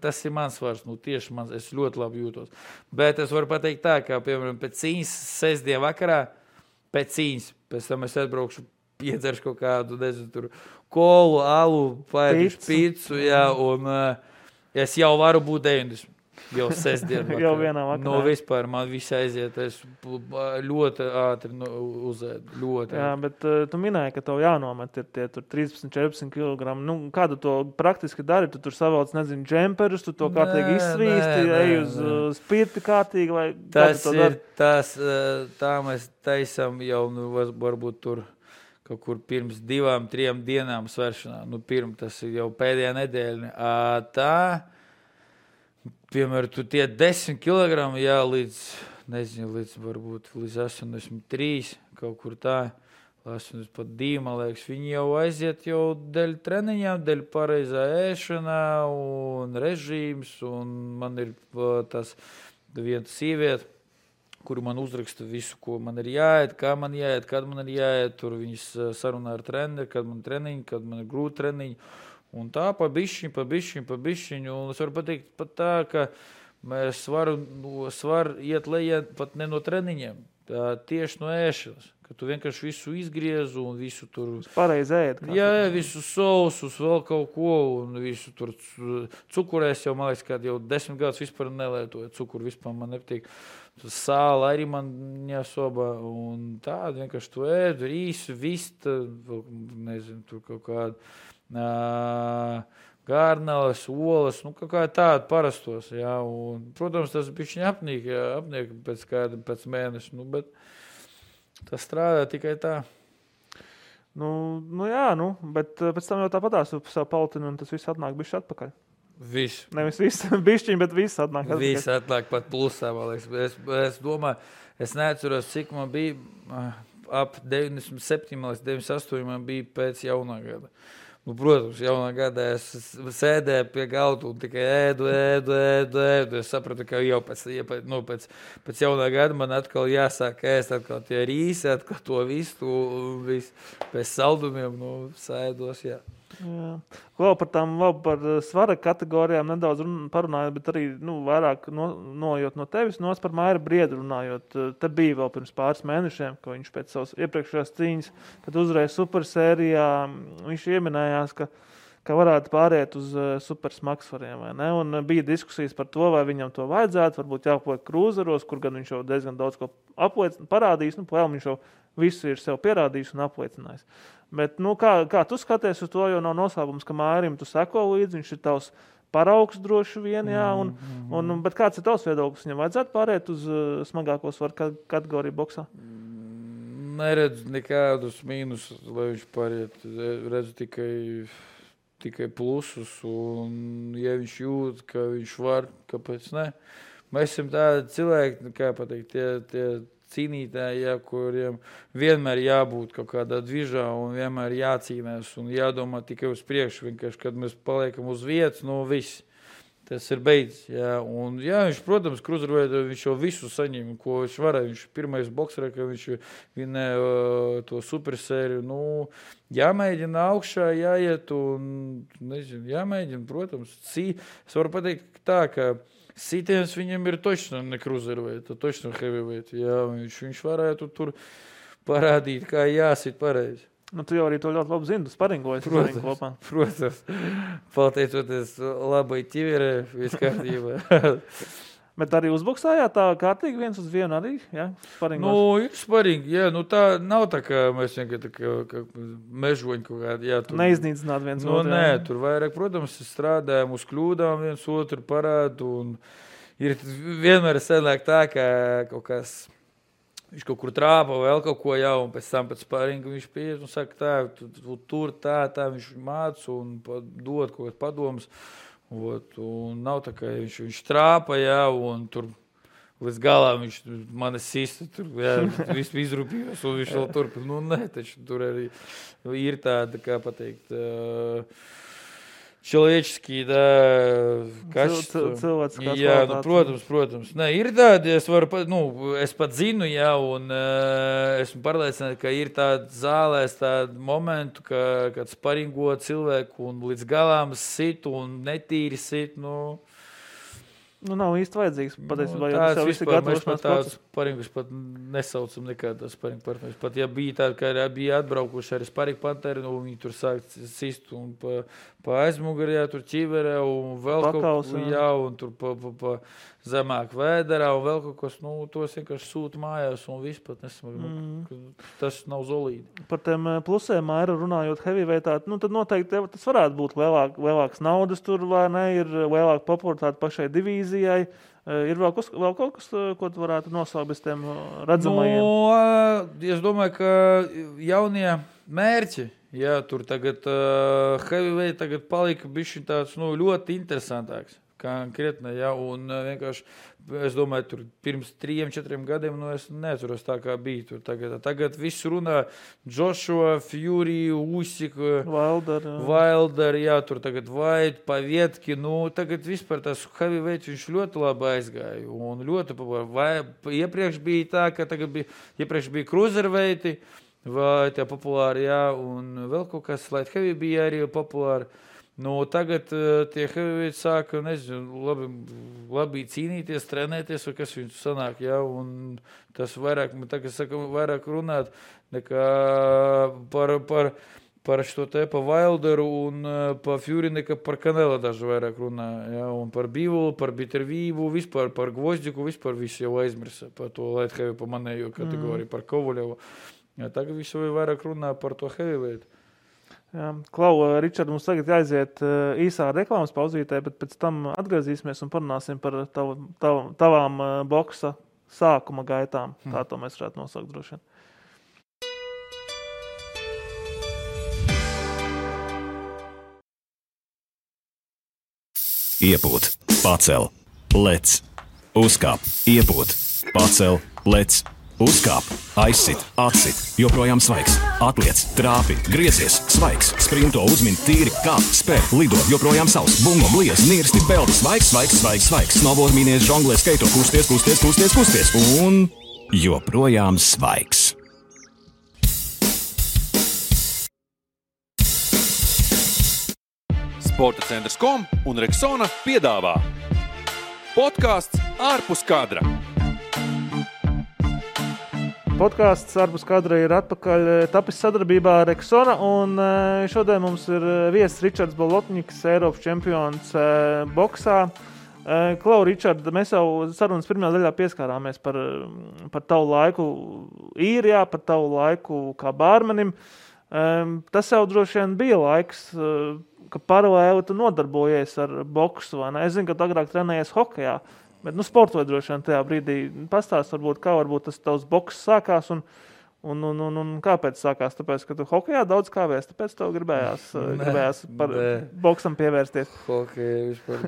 tas ir mans svars, tieši mans, es ļoti labi jūtos. Bet es varu pateikt tā, kā, piemēram, pēc cīņas, sestdien vakarā, pēc cīņas, pēc tam es atbraukšu, piedzeršu kaut kādu, nezinu, tur kolu, alu, paēdušu pīcu, jā, un es jau varu būt 90. Jau sestdien vakarā. Jau vienā vakarā. Vispār man viss aiziet, es ļoti ātri uzēdu, ļoti. Jā, bet tu minēji, ka tev jānomet ir tie tur 13-14 kg. Kādu to praktiski dari? Tu tur savauc, nezinu, džemperus, tu to kārtīgi izsvīsti, ej uz spirti kārtīgi, vai kādu to dari? Tā mēs taisam jau, varbūt tur kaut kur pirms 2-3 dienām sveršanā. Tas ir jau pēdējā nedēļa. Tā... Piemēram, tu tie 10 kg, jā, līdz varbūt līdz 83, kaut kur tā, 82, man liekas, viņi jau aiziet jau dēļ treniņām, dēļ pareizā ēšanā un režīms, un man ir tas viena sieviete, kuru man uzraksta visu, ko man ir jāiet, kā man jāiet, kad man ir jāiet, tur viņas sarunā ar treneri, kad man treniņi, kad man ir grūti treniņi. Un tā pa bišķiņu, un es varu pateikt pat tā, ka mēs var iet lejā pat ne no treniņiem, tieši no ēšanas, ka tu vienkārši visu izgriezu un visu tur... Pareizi ēd. Jā, visu sausus, vēl kaut ko, un visu tur cukurēs jau, man liekas, kad jau 10 gadus vispār nelietoju, cukuru vispār man nepatīk. Sāla arī man jāsobā, un tādu vienkārši tu ēd, rīsu, vista, nezinu, tur kaut kādu. Gārneles, olas, kaut kā tāda parastos, jā, un, protams, tas bišķiņ apniek pēc mēneša, bet tas strādā tikai tā. Bet pēc tam jau tāpatās tu savu paltinu, un tas viss atnāk bišķi atpakaļ. Viss. Nevis viss bišķiņ, bet viss atnāk atpakaļ. Viss atnāk pat plusā, man liekas. Es domāju, es neatceros, cik man bija ap 97, 98 man bija pēc jaunā gada. Protams, jaunā gadā es sēdēju pie galda un tikai ēdu. Es sapratu, ka jau pēc jaunā gada man atkal jāsāk ēst atkal tie rīsi, atkal to visu, pēc saldumiem, sēdos, jā. Vēl par svara kategorijām nedaudz parunājot, bet arī vairāk nojot no tevis, par Maira Briedu runājot. Te bija vēl pirms pāris mēnešiem, ka viņš pēc savas iepriekšējās cīņas, kad uzvarēja supersērijā, viņš ieminējās, ka varētu pāriet uz supersmagsvariem, vai ne? Un bija diskusijas par to, vai viņam to vajadzētu, varbūt jāpaliek krūzeros, kur gan viņš jau diezgan daudz ko parādījis, vēl viņš jau visu ir sev pierādījis un apliecinājis. Bet, kā tu skaties uz to, jo nav noslēpums, ka Mairim tu seko līdzi, viņš ir tavs paraugs droši vien, jā, bet kāds ir tavs viedoklis? Viņam vajadzētu pāriet uz smagāko svaru kategoriju boksā? Neredzu nekādus mīnusus, lai viņš pāriet. Redzu tikai plusus, un ja viņš jūt, ka viņš var, kāpēc ne? Mēs esam tādi cilvēki, kā pateikt, tie cīnītāji, kuriem vienmēr jābūt kaut kādā dvižā un vienmēr jācīnās un jādomā tikai uz priekšu. Vienkārši, kad mēs paliekam uz vietas, viss. Tas ir beidzis. Jā. Un, jā, viņš, protams, kruzerveidā viņš jau visu saņem, ko viņš varēja. Viņš pirmais boksera, ka viņš vinēja to supersēriju. Jāmēģina augšā, jāiet un, jāmēģina, protams. Es varu pateikt tā, ka sitiens viņam ir točno ne kruzerveidā, točno heavyweight. Jā, viņš varētu tur parādīt, kā jāsit pareizi. Tu jau arī to ļoti labi zini, tu sparingojies kopā. Protams. Pateicoties labai ķiverē, viss kārtībā. Bet arī uzboksājāt tā kārtīgi 1-1 arī, jā? Ir sparingi, jā. Tā nav tā, ka mēs vienkārši kā mežoņi kaut kādi, jā. Neiznīcināt viens otru. Nē, tur vairāk, protams, strādājam uz kļūdām viens otru parādu, un ir vienmēr sanāk tā, ka kaut kas, viņš kaut kur trāpa vēl kaut ko jau, un pēc tam pēc sparinga viņš pieiet un saka tā, tur tā, viņš māc un dod kaut kāds padomus. Un nav tā, ka viņš trāpa, jā, un tur līdz galā viņš mani sista, tur, jā, visu izrūpījos, un viņš vēl turpina. Nē, taču tur arī ir tāda, kā pateikt, человеческие, качества. Cilvēciskās jā, kvalitātes. Protams. Nē, ir tādi, es pat zinu, jā, un esmu pārliecināts, ka ir tādi zālēs tādi momentu, kad sparingo cilvēku un līdz galām sit un netīri sit, nav īsti vajadzīgs, patiesībā, jo tāds tas jau viss ir gatavošanās process. Sparingus pat nesaucam nekādā sparingu partneri. Pat ja bija tādi, ka bija atbraukuši arī sparingu partneri, viņi tur sāk sist un pa aizmugurē, tur ķiverē un vēl Pakaus, kaut ko, un tur pa zemāk vēderā un vēl kaut kas, tos vienkārši sūta mājās un viss pat nesmagi, tas nav zolīdi. Par tiem plusiem, Maira, runājot heavyweightā, tad noteikti tas varētu būt lielāks naudas tur, vai ne, ir lielāka popularitāte pašai divīzijai. Ir vēl kaut kas, ko tu varētu nosaukt bez tiem redzamajiem? Es domāju, ka jaunie mērķi, jā, tur tagad heavyweight tagad palika bišķi tāds, ļoti interesantāks. Konkrētni, jā, un vienkārši, es domāju, tur pirms 3-4 gadiem, es neatceros tā, kā bija tur tagad viss runā Joshua, Fury, Usyk, Wilder, jā, tur tagad White, Pavietki, tagad vispār tas heavyweight viņš ļoti labi aizgāja, un ļoti iepriekš bija tā, ka iepriekš bija cruiserweighti, vai tie populāri, jā, un vēl kaut kas light heavy bija arī populāri. Tagad tie heavyweight sāka, labi cīnīties, trenēties, vai kas viņus sanāk, jā, un tas vairāk, tagad saka, vairāk runāt nekā par šo te, pa Wilderu un pa Fury, nekā par Canelo daži vairāk runā, jā, un par Bivolu, par Bittervību, vispār par Gvozdiku, vispār visu jau aizmirsa, par to light heavy, pa manējo kategoriju, par Kovaļevu. Jā, tagad visu vairāk runā par to heavyweight. Jā, Klau, Ričard, mums tagad jāiziet īsā reklāmas pauzītē, bet pēc tam atgriezīsimies un parunāsim par tavām boksa sākuma gaitām. Tā to mēs varētu nosaukt droši vien. Iepūt, pacel, lec, uzkāp, iepūt, pacel, lec, uzkāp, aizsit, atsit, joprojām svaigs, atliec, trāpi, griezies, svaigs, sprinto, uzmin, tīri, kāp, spēr, lido, joprojām sauss, bungo, bliez, nirsti, peldi, svaigs, svaigs, svaigs, svaigs, snowboard, mīnies, žonglē, skaito, kusties un joprojām svaigs. Sporta centrs.com un Rexona piedāvā podkāsts ārpus kadra. Podkāsts ārpus kadra ir atpakaļ tapis sadarbībā ar Rexona, un šodien mums ir viesis Ričards Bolotņiks, Eiropas čempions boksā. Klau, Ričard, mēs jau sarunas pirmajā daļā pieskārāmies par tavu laiku īrijā, par tavu laiku kā bārmenim. Tas jau droši vien bija laiks, ka paralēli tu nodarbojies ar boksu, vai ne? Es zinu, ka tu agrāk trenējies hokejā, bet sportoji droši vien tajā brīdī. Pastāst varbūt, kā varbūt tas tavs boks sākās un kāpēc sākās? Tāpēc, ka tu hokejā daudz kāvēs, tāpēc tev gribējās par boksam pievērsties. Hokeja vispār.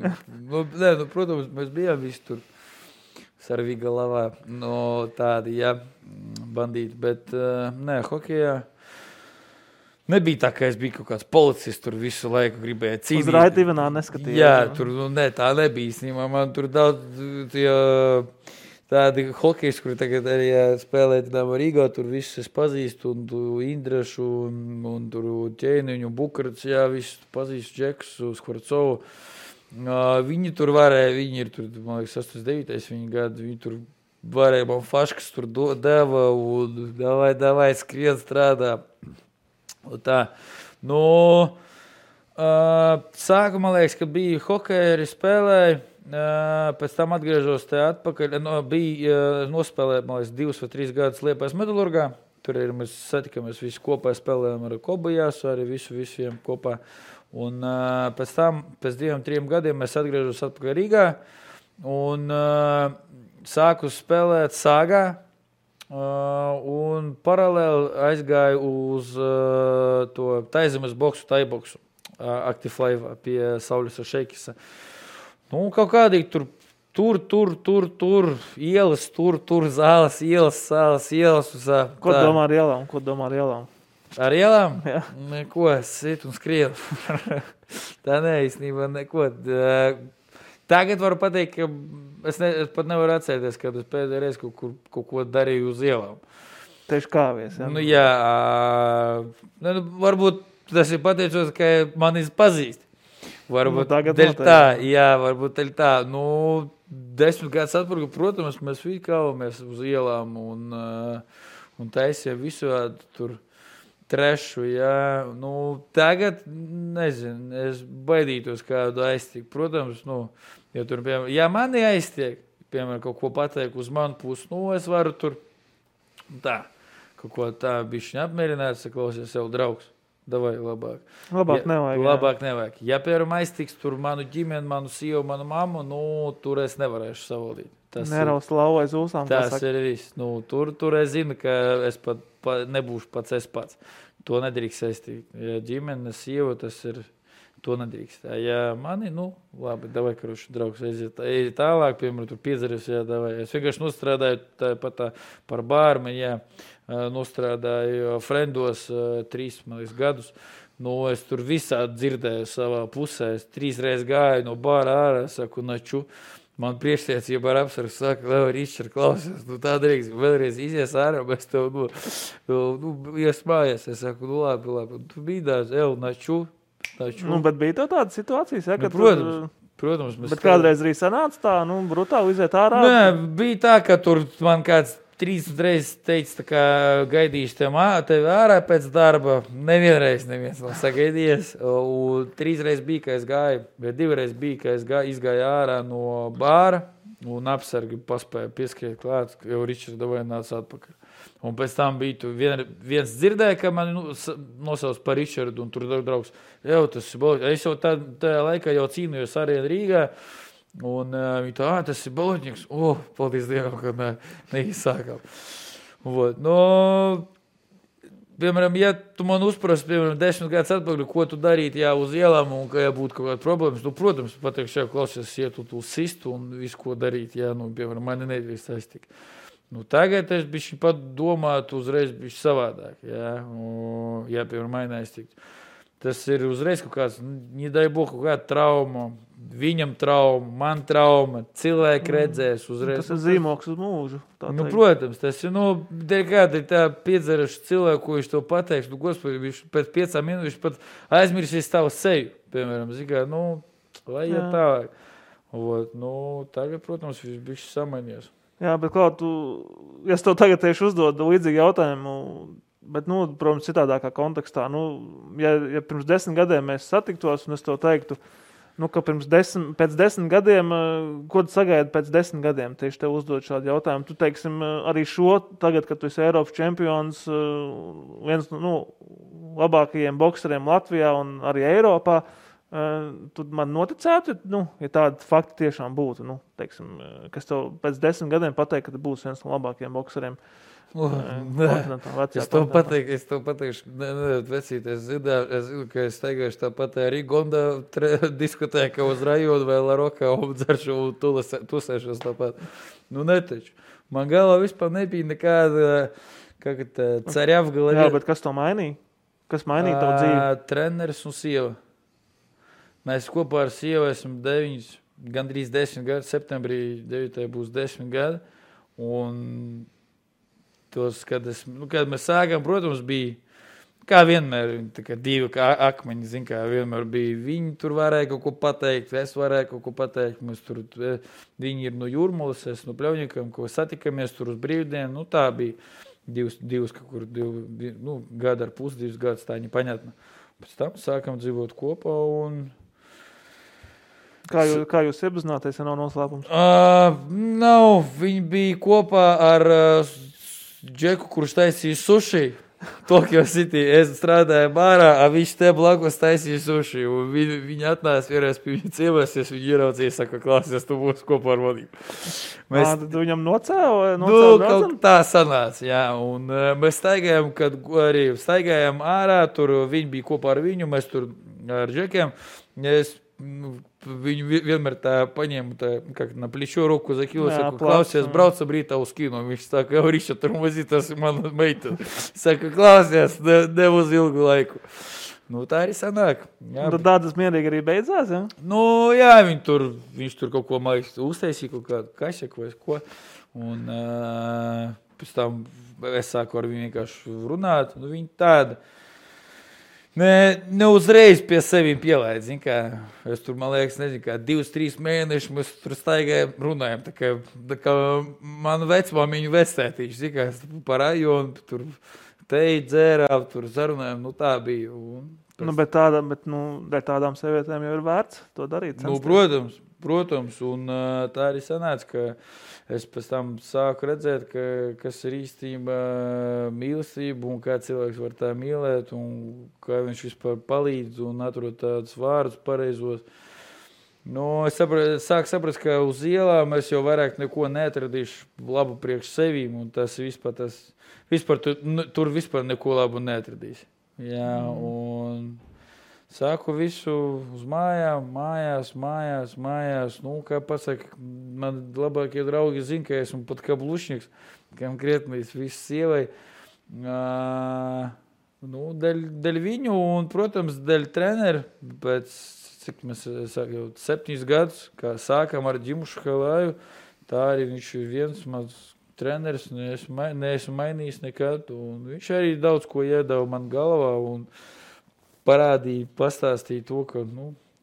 Protams, mēs bijām visi tur sarvīga lavā, tādi, bandīti, bet hokejā nebija tā, ka es biju kaut kāds policists, tur visu laiku gribēju cīnīt. Uz Raidivenā neskatījās. Jā, tur tā nebija īstenībā. Man tur daudz tādi hokejs, kuri tagad arī spēlē Rīgā, tur visus es pazīstu, un Indrašu, un tur Ķēniņu, Bukarats, visus pazīstu, Džeksu, Skvarcovu. Viņi tur varēja, viņi ir tur, man liekas, 89. Viņi gadu, viņi tur varēja, man faškas tur deva, un davai skrien strādā. Tā. Sākumā liekas, ka bija hokeja arī spēlēja, pēc tam atgriežos te atpakaļ, nospēlēju, man liekas, 2 vai 3 gadus Liepājas Metalurgā, tur ir, mēs satikamies visi kopā, spēlējām ar Kobajās, arī visiem kopā, un pēc tam, pēc 2-3 gadiem mēs atgriežos atpakaļ Rīgā, un sāku spēlēt Sāgā, un paralēli aizgāju uz to taizemes boksu, taiboksu, Active Life pie Sauļas Šeikisa. Kaut kādīgi tur, ielas, tur, zāles, ielas. Ko domā ar ielām? Ar ielām? Jā. Neko, sit un skrienu. Tā neīstenībā neko. Tagad varu pateikt, ka es pat nevaru atcerēties, kad es pēdējā reiz kaut ko darīju uz ielām. Tieši kāvies, jā? Jā. Varbūt tas ir pateicos, ka mani pazīst. Varbūt dēļ tā. Jā, varbūt dēļ tā. 10 gadus atpakaļ, protams, mēs visi kāvamies uz ielām un taisījām visādi tur trešu, jā. Tagad, nezinu, es baidītos kādu aiztikt. Protams, ja tur, piemēram, mani aiztiek, piemēram, kaut ko pateikt uz manu pusi, es varu tur tā, kaut ko tā bišķiņ apmierināt, saklausies sev draugs. Davai, labāk. Labāk nevajag. Ja, piemēram, aiztiks tur manu ģimeni, manu sievu, manu mammu, tur es nevarēšu savaldīt. Neraust lauvu aiz ūsām. Tas ir viss. Tur es zinu, ka es pat nebūšu pats. To nedrīkst saistīt. Ja ģimene, sieva, tas ir, to nedrīkst. Ja mani, labi, davai, karuši, draugs, aiziet tālāk, piemēram, tur piedzeries, davai. Es vienkārši nostrādāju tāpat par bārmeni, nostrādāju Frendos 3 gadus. Es tur visādi dzirdēju savā pusē. Es 3 reizes gāju no bāra ārā, saku, naču. Man priekšniecība ar apsargu saka, Ričard, klausies, tā drīkst, vēlreiz izies ārā, mēs tev, iesmājies. Es saku, labi. Tu bīdās, naču. Bet bija tev tādas situācijas, ja, ka protams. Bet kādreiz arī sanāca tā, brutāli iziet ārā? Nē, bija tā, ka tur man kāds 3 reizes teica, tā kā gaidīšu tevi ārā pēc darba. Neviens nav sagaidījies. 3 reizes bija, ka es gāju, bet 2 reizes bija, ka es izgāju ārā no bāra un apsargi paspēju pieskriet klāt, jau Ričards davai nāca atpakaļ. Un pēc tam bija viens dzirdēja, ka mani nosauc par Ričardu, un tur draugs, tas ir Bolotņiks. Es jau tajā laikā jau cīnījos arī Rīgā. Un viņi tas ir Bolotņiks. Paldies Dievam, ka neizsākām. Piemēram, ja tu man uzprasi, piemēram, 10 gadus atpakaļ, ko tu darīt, uz ielām, un ka būtu kaut kāda problēmas, protams, pateikšu, klausies, ietu tu sistu un visu, ko darīt, piemēram, mani nedrīkst aiztikt. Nu, tagad es bišķi pat domātu uzreiz bišķi savādāk, ja piemēram mainās tikt. Tas ir uzreiz kaut kāds, nedai Bogu, kaut kāda trauma, viņam trauma, man trauma, cilvēki redzēs uzreiz. Tas ir zīmoks uz mūžu. Nu, protams, tas ir, dēļ kāda ir tā piedzeraša cilvēku, ko viņš to pateiks. Nu, gospodi, viņš pēc 5 minūtes viņš pat aizmirsīs tavu seju, piemēram, zikā, lai iet tālāk. Tagad, protams, viņš bišķi samainies. Jā, bet kā ja es tev tagad tieši uzdodu līdzīgu jautājumu, bet, protams, citādākā kontekstā, ja pirms 10 gadiem mēs satiktos, un es to teiktu, ka pēc 10 gadiem, ko tu sagaidi pēc 10 gadiem, tieši tev uzdod šādu jautājumu. Tu, teiksim, arī tagad, kad tu esi Eiropas čempions, viens labākajiem bokseriem Latvijā un arī Eiropā, tu man noticētu, ja tādi fakti tiešām būtu, teiksim, kas tev pēc 10 gadiem pateikt, ka tu būsi viens no labākajiem bokseriem. Es to pateikšu, vecīt, es zinu, ka es teikšu tāpat arī Gonda diskutēju, ka uz rajonu vai Larokā obdzaršu un tusēšos tāpat. Netaču. Man galvā vispār nebija nekāda, cerjavgala. Jā, bet kas to mainīja? Kas mainīja tavu dzīvi? Treneris un sieva. Mēs kopā ar sievu esam gandrīz 10 gadi, septembrī 9. būs 10 gadi, un kad mēs sākām, protams, bija, kā vienmēr, divi akmeņi, kā vienmēr bija, viņi tur varēja kaut ko pateikt, es varēju kaut ko pateikt, viņi ir no Jūrmalas, es no Pļauņikam, ko satikamies tur uz brīvdienu, tā bija divas kaut kur, gada ar pus, 2 gadus, tā nepaņatna. Pēc tam sākam dzīvot kopā un... Kā jūs iepazināties, ja nav noslēpums? Nav, viņi bija kopā ar Džeku, kurš taisīja suši. Tokyo City. Es strādāju bārā, viņš te blakus taisīja suši. Viņi atnāca vienreiz pie viņa ciemēsies, viņi ieraudzīja, saka, klāsies, tu būsi kopā ar vadību. Tad viņam nocēla? Kaut tā sanāca, jā. Un mēs staigājām ārā, tur viņi bija kopā ar viņu, mēs tur ar Džekiem. Viņu vienmēr tā paņēma, na плечо руку закинула, saka, klausies, braucam rītā uz kino. Viņš saka, jau Riša, turmazī, tas ir mana meita. Saka, klausies, nev uz ilgu laiku. Tā arī sanāk. Tad tādas mierīgi arī beidzās, ja? Jā, viņš tur kaut ko mājas uztaisīja, kaut kādu kašeku vai ko. Un pēc tam es sāku ar viņu vienkārši runāt. Viņi tāda. Ne uzreiz pie sevīm pielaid, zin kā, es tur, man liekas, nezinu, kā 2-3 mēneši mēs tur staigājam, runājam, tā kā manu vecmāmiņu vectētīši, zin kā, par rajonu, tur teji dzērām, tur zarunājam, tā bija. Bet tādām sievietēm jau ir vērts to darīt. Protams, un tā arī sanāca, ka es pēc tam sāku redzēt, kas ir īstenībā mīlestība un kā cilvēks var tā mīlēt un kā viņš vispār palīdz un atrod tādus vārdus pareizos. Es sāku saprast, ka uz ielām es jau vairāk neko neatradīšu labu priekš sevīm un tas vispār tur vispār neko labu neatradīsi. Jā, un... Sāku visu uz mājās. Kā pasaka, man labākie draugi zina, ka esmu pat kā blušņiks, kam krietnīs visu sievai. Dēļ viņu un, protams, dēļ treneru. Pēc, cik mēs jau 7 gadus, kā sākam ar Ģimušu Halāju, tā arī viņš ir viens mans treneris, neesmu mainījis nekad. Un viņš arī daudz ko iedeva man galvā un parādīja, pastāstīja to, ka,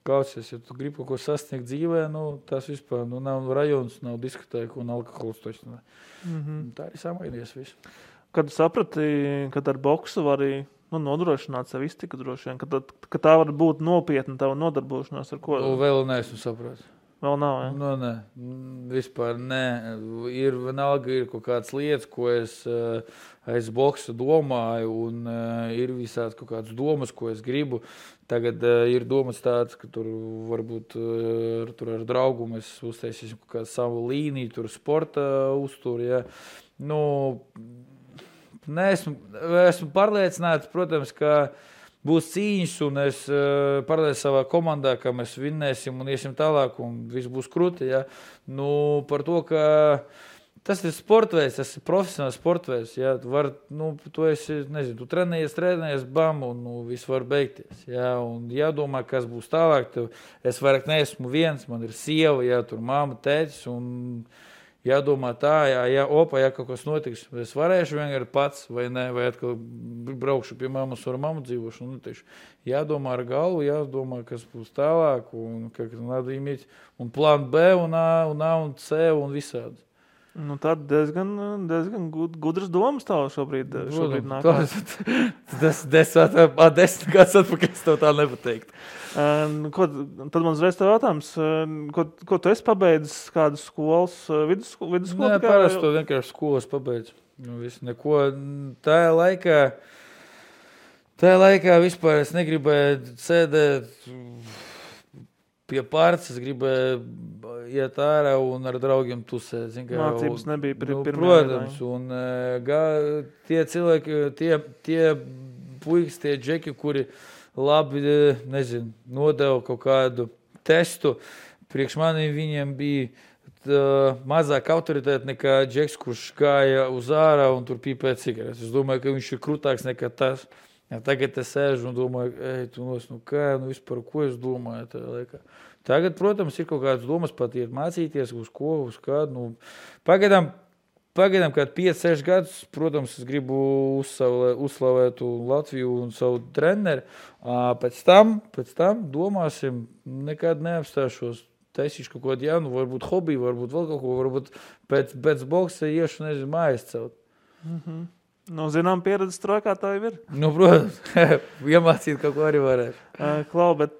klausies, ja tu gribi kaut ko sasniegt dzīvē, tas vispār, nav rajons, nav diskotēka un alkohols toši. Tā arī samainies visu. Kad saprati, kad ar boksu var arī nodrošināt sev iztiku droši vien, ka tā var būt nopietna tava nodarbošanās ar ko? Vēl neesmu saprāt. Vēl nav, ja? Nē, vispār nē. Vienalga ir kaut kādas lietas, ko es aiz boksu domāju, un ir visāds kaut kādas domas, ko es gribu. Tagad ir domas tāds, ka tur varbūt tur ar draugu mēs uztaisīsim kaut kādu savu līniju, tur sporta uzturu, ja. Esmu pārliecināts, protams, ka būs cīņas, un es pārliecinu savā komandā, ka mēs vinnēsim un iesim tālāk, un viss būs kruti. Ja? Par to, ka Tas ir sportveids, tas ir profesionāls sportveids. Jā, tu esi, nezinu, tu trenējies, bam, un viss var beigties. Jā, un jādomā, kas būs tālāk. Es vairāk neesmu viens, man ir sieva, jā, tur mamma, tētis, un jādomā tā, ja kaut kas notiks, es varēšu vienkārši pats, vai ne, vai atkal braukšu pie mammas ar mammu dzīvošu. Jādomā ar galvu, jādomā, kas būs tālāk, un plānu B, un A, un C, un visādi. Nu, tad diezgan gudras domas tev šobrīd nāk. Tas 10 gadus atpakaļ es tev tā nepateiktu. Tad man uzreiz tev jautājums, ko tu esi pabeidzis, kādas skolas, vidusskolu? Nē, parasti to vienkārši skolas pabeidzu. Neko. Tajā laikā vispār es negribēju sēdēt pie pārts, es gribēju iet ārā un ar draugiem tusēt. Mācības nebija pirmā. Protams, un tie cilvēki, tie puikas, tie džeki, kuri labi, nezinu, nodeva kaut kādu testu, priekš maniem viņiem bija mazāk autoritāte nekā džeks, kurš gāja uz ārā un tur pīpēja cigaretes. Es domāju, ka viņš ir krūtāks nekā tas. Ja, tagad es sēžu un domāju, vispār, ko es domāju tajā laikā. Tagad, protams, ir kaut kādas domas pat iet mācīties, uz kādu. Pagaidām, kad 5-6 gadus, protams, es gribu uzslavēt Latviju un savu treneri. Pēc tam domāsim, nekad neapstāšos. Taisīšu kaut ko jaunu, varbūt hobiju, varbūt vēl kaut ko, varbūt pēc boksa iešu, nezinu, mājas celt. Zinām, pieredzes trojkā tā jau ir. Protams, iemācīt kaut ko arī varētu. Klau, bet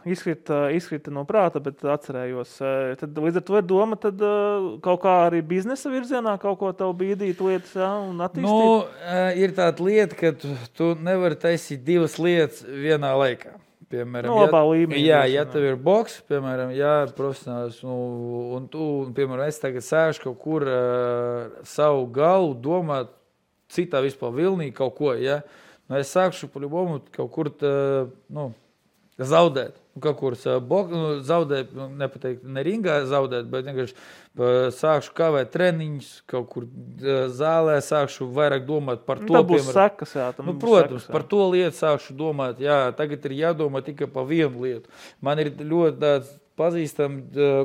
izkrita no prāta, bet atcerējos. Tad līdz ar to ir doma, tad kaut kā arī biznesa virzienā kaut ko tev bīdīt lietas, jā, un attīstīt? Ir tāda lieta, ka tu nevari taisīt divas lietas vienā laikā. Piemēram, labā līmenī. Ja tev ir boks, piemēram, profesionāls, un tu, piemēram, es tagad sēžu kaut kur savu galvu domāt citā vispār vilnī kaut ko, ja? Es sākšu pa-ļubomu kaut kur zaudēt. Kaut kur zaudēt, nepateikt, ne ringā zaudēt, bet vienkārši sākšu kavēt treniņus, kaut kur zālē sākšu vairāk domāt par to. Tā būs sekas, jā. Protams, par to lietu sākšu domāt. Jā, tagad ir jādomā tikai par vienu lietu. Man ir ļoti tāds pazīstami,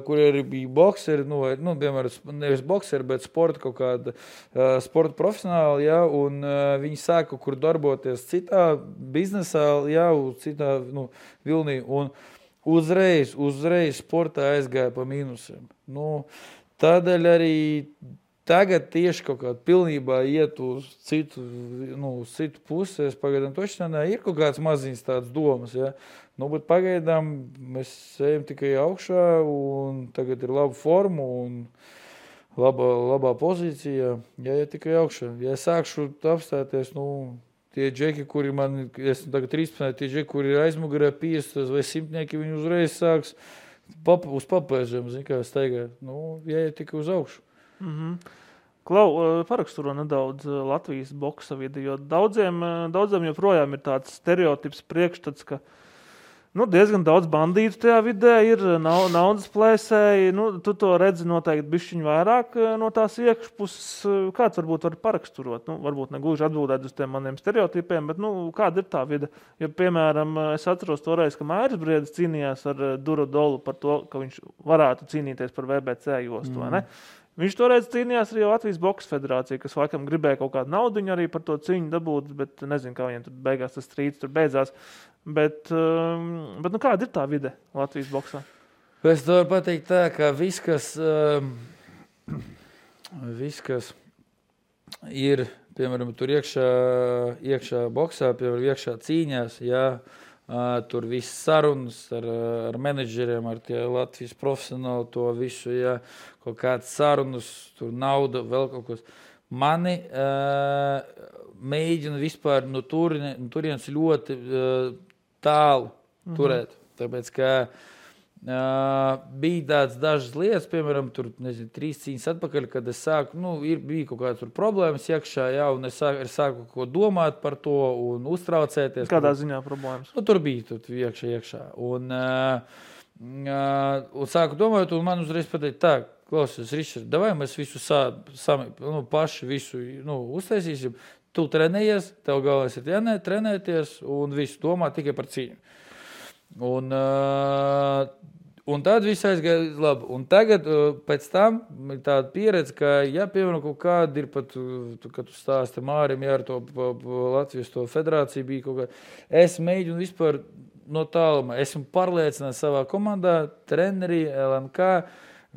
kur arī bija bokseri, piemēram, nevis bokseri, bet sporta kaut kāda sporta profesionāli, jā, un viņi sāka kaut kur darboties citā biznesā, jā, citā vilnī, un uzreiz sportā aizgāja pa mīnusiem. Tādēļ arī tagad tieši kaut kādā pilnībā iet uz citu pusi, es pagaidām tošanā ir kaut kāds maziņas tādas domas, jā. Bet pagaidām mēs ejam tikai augšā, un tagad ir laba forma un labā pozīcija. Ja tikai augšā. Ja es sākšu apstāties, tie džeki, kuri man, es tagad 13, tie džeki, kuri ir aizmugurē 50 vai 100, viņi uzreiz sāks uz papēžiem, kā staigāt. Ja tikai uz augšu. Klau, paraksturo nedaudz Latvijas boksa vidi, jo daudziem joprojām ir tāds stereotips priekšstats, ka diezgan daudz bandītu tajā vidē ir, naudas plēsēji. Tu to redzi noteikti bišķiņ vairāk no tās iekšpuses. Kāds varbūt var paraksturot? Varbūt negluži atbildēt uz tiem maniem stereotipiem, bet kāda ir tā vide? Jo, piemēram, es atceros toreiz, ka Mairis Briedis cīnījās ar Durodolu par to, ka viņš varētu cīnīties par VBC jostu, vai ne? Viņš toreiz cīnījās arī Latvijas Boksa federācija, kas laikam gribēja kaut kādu naudiņu arī par to cīņu dabūt, bet nezinu, kā viņiem tur beigās tas strīds tur beidzās. Bet kāda ir tā vide Latvijas boksā? Es to varu pateikt tā, ka viss, kas ir, piemēram, tur iekšā boksā, piemēram, iekšā cīņās, jā, tur viss sarunas ar menedžeriem, ar tie Latvijas profesionāli, to visu, ja, kaut kāds sarunas, tur nauda, vēl kaut kas. Mani mēģina vispār no turienes ļoti tālu turēt, tāpēc, ka bija tāds dažas lietas, piemēram, tur, 3 cīņas atpakaļ, kad es sāku, bija kaut kādas tur problēmas iekšā, jā, un es sāku ko domāt par to un uztraucēties. Kādā ziņā problēmas? Tur bija iekšā. Un Un sāku domāt, un man uzreiz pateikt, tā, klausies, Ričard, davai mēs visu paši visu uztaisīsim. Tu trenējies, tev galvenais ir trenēties un visu domā tikai par cīņu. Un tad viss aizgāja labi. Un tagad pēc tam ir tāda pieredze, ka, ja piemēram kaut kāda ir pat, kad tu stāsti Mārim, ja ar to Latvijas to federāciju bija kaut kā, es mēģinu vispār no tālumā. Esmu pārliecināts savā komandā, treneri, LNK,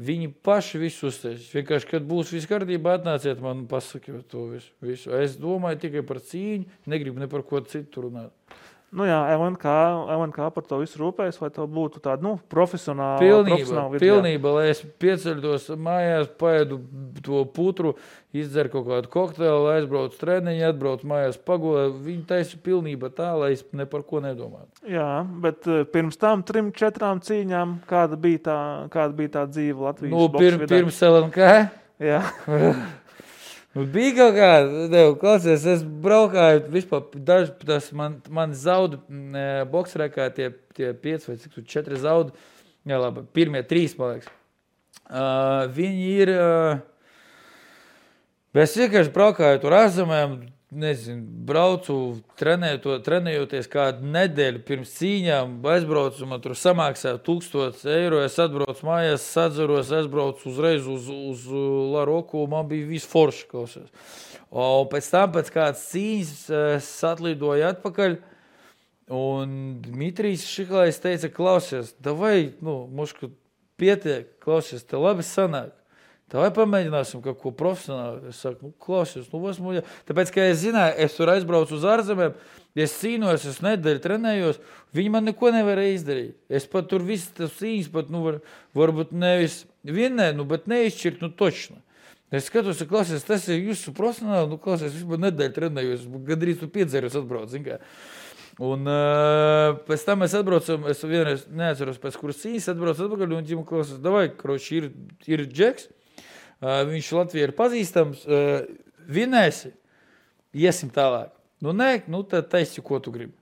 viņi paši visu uztaisīs. Vienkārši, kad būs viss kārtībā, atnāciet man un pasakiet to visu. Es domāju tikai par cīņu, negribu ne par ko citu runāt. Nu jā, LNK par to visu rūpējas, vai to būtu tāda, profesionāla vieta? Pilnība, lai es pieceļos mājās, paēdu to putru, izdzeru kaut kādu kokteili, aizbraucu treniņu, atbraucu mājās pagulē. Viņi taisa pilnība tā, lai es ne par ko nedomātu. Jā, bet pirms tam 3-4 cīņām, kāda bija tā dzīve Latvijas boks vidē? Pirms LNK? Jā. Bija kaut kāda, klausies, es braukāju, vispār daži, man zaudu boksrekā tie 5 vai 4 zaudu, jā labi, pirmie 3, man liekas. Viņi ir, es vienkārši braukāju tur ārzemēm, nezinu, braucu trenējoties kādu nedēļu pirms cīņām, aizbraucu, man tur samaksāju 1000 eiro, es atbraucu mājās, sadzeros, aizbraucu uzreiz uz Laroku, man bija viss forši, klausies. Un pēc tam, pēc kādas cīņas, es atlidoju atpakaļ, un Dmitrijs Šiklais teica, klausies, davai, mušku pietiek, klausies, te labi sanāk. Tā vai pamēģināsim kaut ko profesionāli. Es saku, klausies, tāpēc, ka es zināju, es tur aizbraucu uz ārzemēm, es cīnos, es nedēļu trenējos, viņi man neko nevarēja izdarīt. Es pat tur visu tas cīņas, pat, varbūt nevis vienē, bet neizšķirt, točno. Es skatos, klausies, tas ir jūsu profesionāli, klausies, vispār nedēļu trenējos, gandrīz tu 5 zeros atbrauc, zin kā. Un pēc tam mēs atbraucam, es vienreiz neatceros pēc kuras cīņas, atbraucu atpakaļ, un ģimu klausies, davai, kroči, ir Džeks. Viņš Latvijā ir pazīstams, vinēsi, iesim tālāk. Tad taisi, ko tu gribi.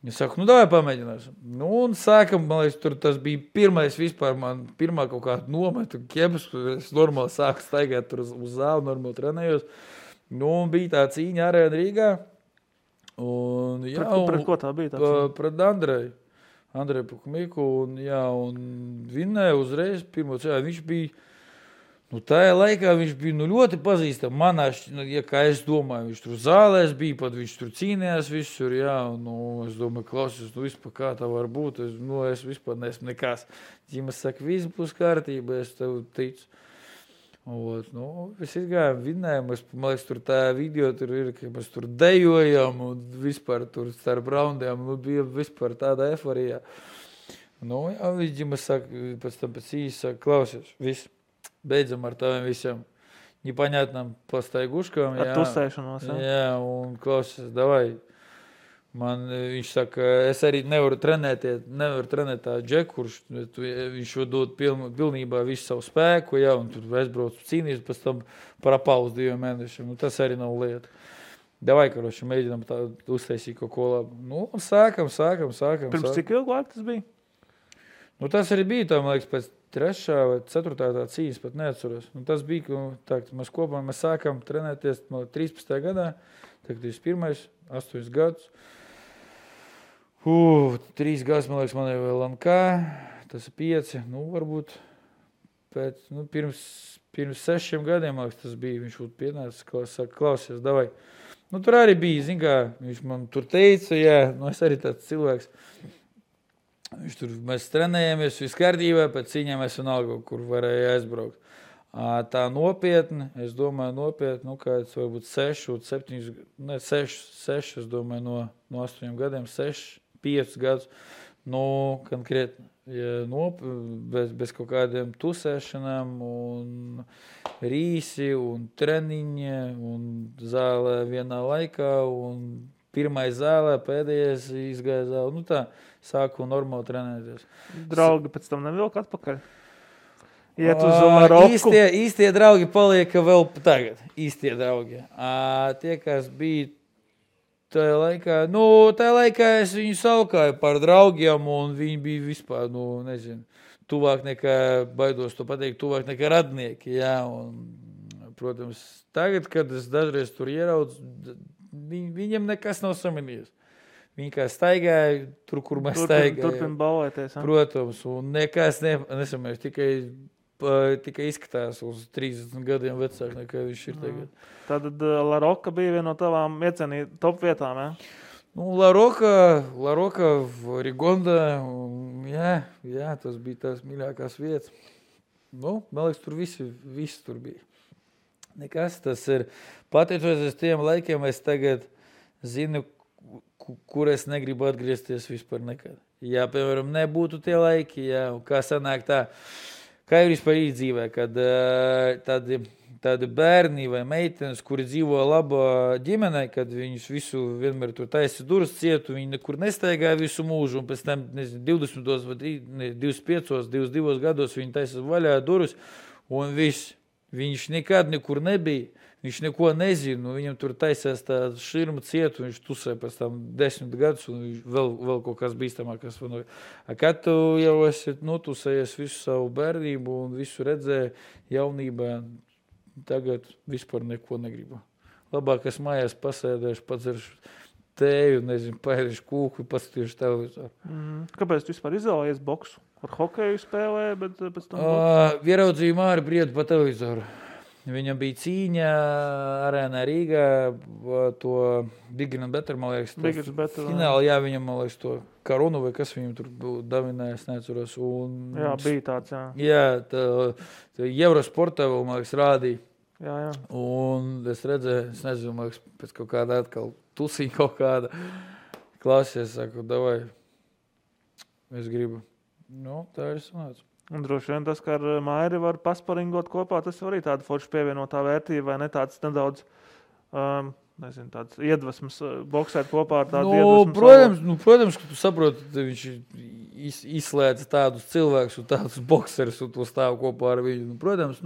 Es saku, davai pamēģināsim. Un sākam, man liekas, tur tas bija pirmais vispār, man pirmā kaut kāda nometa, ķebas, es normāli sāku staigāt tur uz zāli, normāli trenējos. Un bija tā cīņa Arēna Rīgā. Un, jā, pret ko tā bija tā cīņa? Pret Andreju Pukumiku, un vinēja uzreiz pirmo cīņu. Viņš bija tajā laikā viņš bija ļoti pazīstams. Manā, kā es domāju, viņš tur zālēs bija, pat viņš tur cīnījās visur, jā, es domāju, klausies, vispār kā tā var būt, es vispār neesmu nekas. Ģimas saka, viss būs kārtība, es tev ticu. Mēs izgājām, vinējām, man liekas, tur tā video tur ir, ka mēs tur dejojam, un vispār tur starp raundiem, bija vispār tāda eforija. Jā, Ģimas saka, pēc tam pēc īsi saka, klausies, viss. Beidzam ar taviem visiem непонятным поstaigушкам. Ar tusēšanos, jā? Jā, un klausies, davai. Viņš saka, es arī nevaru trenēt tā Džeku, kurš viņš dod pilnībā visu savu spēku, jā, un tur aizbraucu cīnījus, pēc tam parapauzu 2 mēnešiem. Tas arī nav lieta. Davai, karoši, mēģinām tā uztaisīt kaut ko labu. Un sākam. Pirms cik ilgu laiku tas bija? Tas arī bija, tā, man liekas, pēc 3. vai 4. tā cīņas, pat neatceros. Tas bija, mēs kopā sākam trenēties 13. gadā, tagad 21. 8 gadus. 3 gadus, man liekas, man ir vēl LNK, tas ir 5, varbūt pirms 6 gadiem, man liekas, tas bija, viņš būtu pienācis, saka, klausies, davai. Tur arī bija, zin kā, viņš man tur teica, jā, es arī tāds cilvēks. Mēs trenējāmies viss kārtībā, pēc cīņām es vienalga, kur varēja aizbraukt. Tā nopietni, es domāju, kāds varbūt 6, es domāju, no 8 gadiem, 5 gadus, konkrēti, bez kaut kādiem tusēšanām, un rīsi, un treniņi, un zālē vienā laikā, un pirmais zālē, pēdējais izgāja zālē, tā. Sāku normāli trenēties. Draugi pēc tam nevilk atpakaļ? Iet uz Maroku? Īstie draugi palieka vēl tagad. Īstie draugi. Tie, kas bija tajā laikā es viņu saukāju par draugiem, un viņi bija vispār, nezinu, tuvāk nekā, baidos to pateikt, tuvāk nekā radnieki, jā, un, protams, tagad, kad es dažreiz tur ieraudzu, viņiem nekas nav samanījies. Viņi kā staigāja, tur, kur mēs staigājam. Turpin balvēties. Protams, un nekas nesamēs, tikai izskatās uz 30 gadiem vecāk, nekā viņš ir tagad. Tad La Roca bija viena no tavām top vietām, jā? La Roca, Rigonda, jā, tas bija tās mīļākās vietas. Man liekas, tur visi tur bija. Nekas, tas ir, pateicoties tiem laikiem, es tagad zinu, kur es negribu atgriezties vispār nekad. Ja, piemēram, nebūtu tie laiki, jā, un kā sanāk tā, kā ir vispār dzīvē, kad tādi bērni vai meitenes, kuri dzīvo labā ģimenē, kad viņus visu vienmēr tur taisa durvis cietu, viņi nekur nestaigāja visu mūžu, un pēc tam, 20 vai 25, 22 gados viņi taisa vaļā durvis, un viņš nekad nekur nebija. Viņš neko nezina, viņam tur taisās tā širma cietu, viņš tusē pēc tam 10 gadus, un viņš vēl kaut kas bīstamākas vanoja. Kad tu jau esi notusējies visu savu bērnību un visu redzēji jaunībā, tagad vispār neko negribu. Labāk es mājās pasēdēšu, padzeršu tēju, nezinu, paēdīšu kūku, paskatīšu televizoru. Kāpēc tu vispār izvēlējies boksu? Ar hokeju spēlēji, bet pēc tam boksu? Ieraudzīju Māri Briedu pa televizoru. Viņam bija cīņa arēnā Rīgā, to Bigger and Better, man liekas, fināli, jā, viņam, man liekas, to karunu vai kas viņam tur davinājās, neatceros. Jā, bija tāds, jā. Jā, tā Eurosportā vēl, man liekas, rādīja. Jā. Un es redzēju, es nezinu, man liekas, pēc kaut kāda atkal tusiņa kaut kāda klasies, saku, davai, es gribu. Tā ir sanāca. Un droši vien tas, ka ar Mairi var pasparingot kopā, tas arī tāda forša pievienotā vērtība, vai ne tāds nedaudz, nezinu, tāds iedvesmas boksēt kopā ar tādu iedvesmu. Protams, ka tu saproti, ka viņš izslēdz tādus cilvēkus un tādus bokserus un to stāv kopā ar viņu. Protams,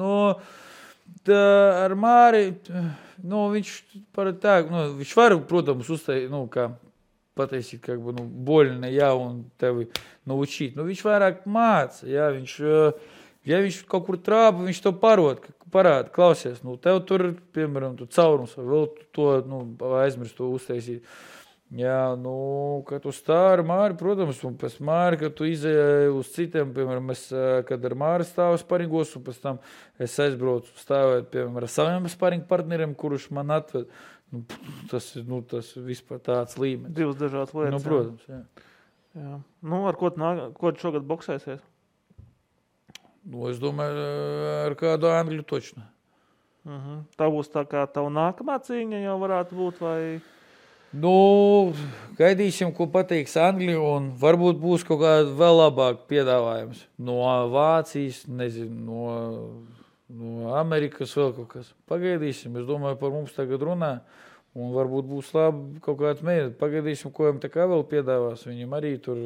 ar Māri, viņš viņš var, protams, uzteikt, kā pateikt, как бы, больно, jā, un tevi naučīt. Viņš vairāk māca, jā, ja viņš kaut kur trāpa, viņš to parāda, klausies, tev tur, piemēram, tu caurums, vēl to, aizmirst to uztaisīt. Jā, kad tu stāvi ar Māri, protams, un pēc Māri, kad tu izēji uz citiem, piemēram, kad ar Māri stāvu sparingos, un pēc tam es aizbraucu stāvēt, piemēram, ar saviem sparingu partneriem, kurš man atved. Tas vispār tāds līmenis. Divas dažādas lietas. Protams, jā. Ar ko tu šogad boksēsies? Es domāju, ar kādu Angļu točnu. Tā būs tā kā tava nākamā cīņa jau varētu būt, vai? Gaidīsim, ko pateiks Angļi, un varbūt būs kaut kāda vēl labāk piedāvājums. No Vācijas, nezinu, no Amerikas vēl kaut kas. Pagaidīsim, es domāju, par mums tagad runā, un varbūt būs labi kaut kāds mēģināt. Pagaidīsim, ko viņam tā kā vēl piedāvās. Viņam arī tur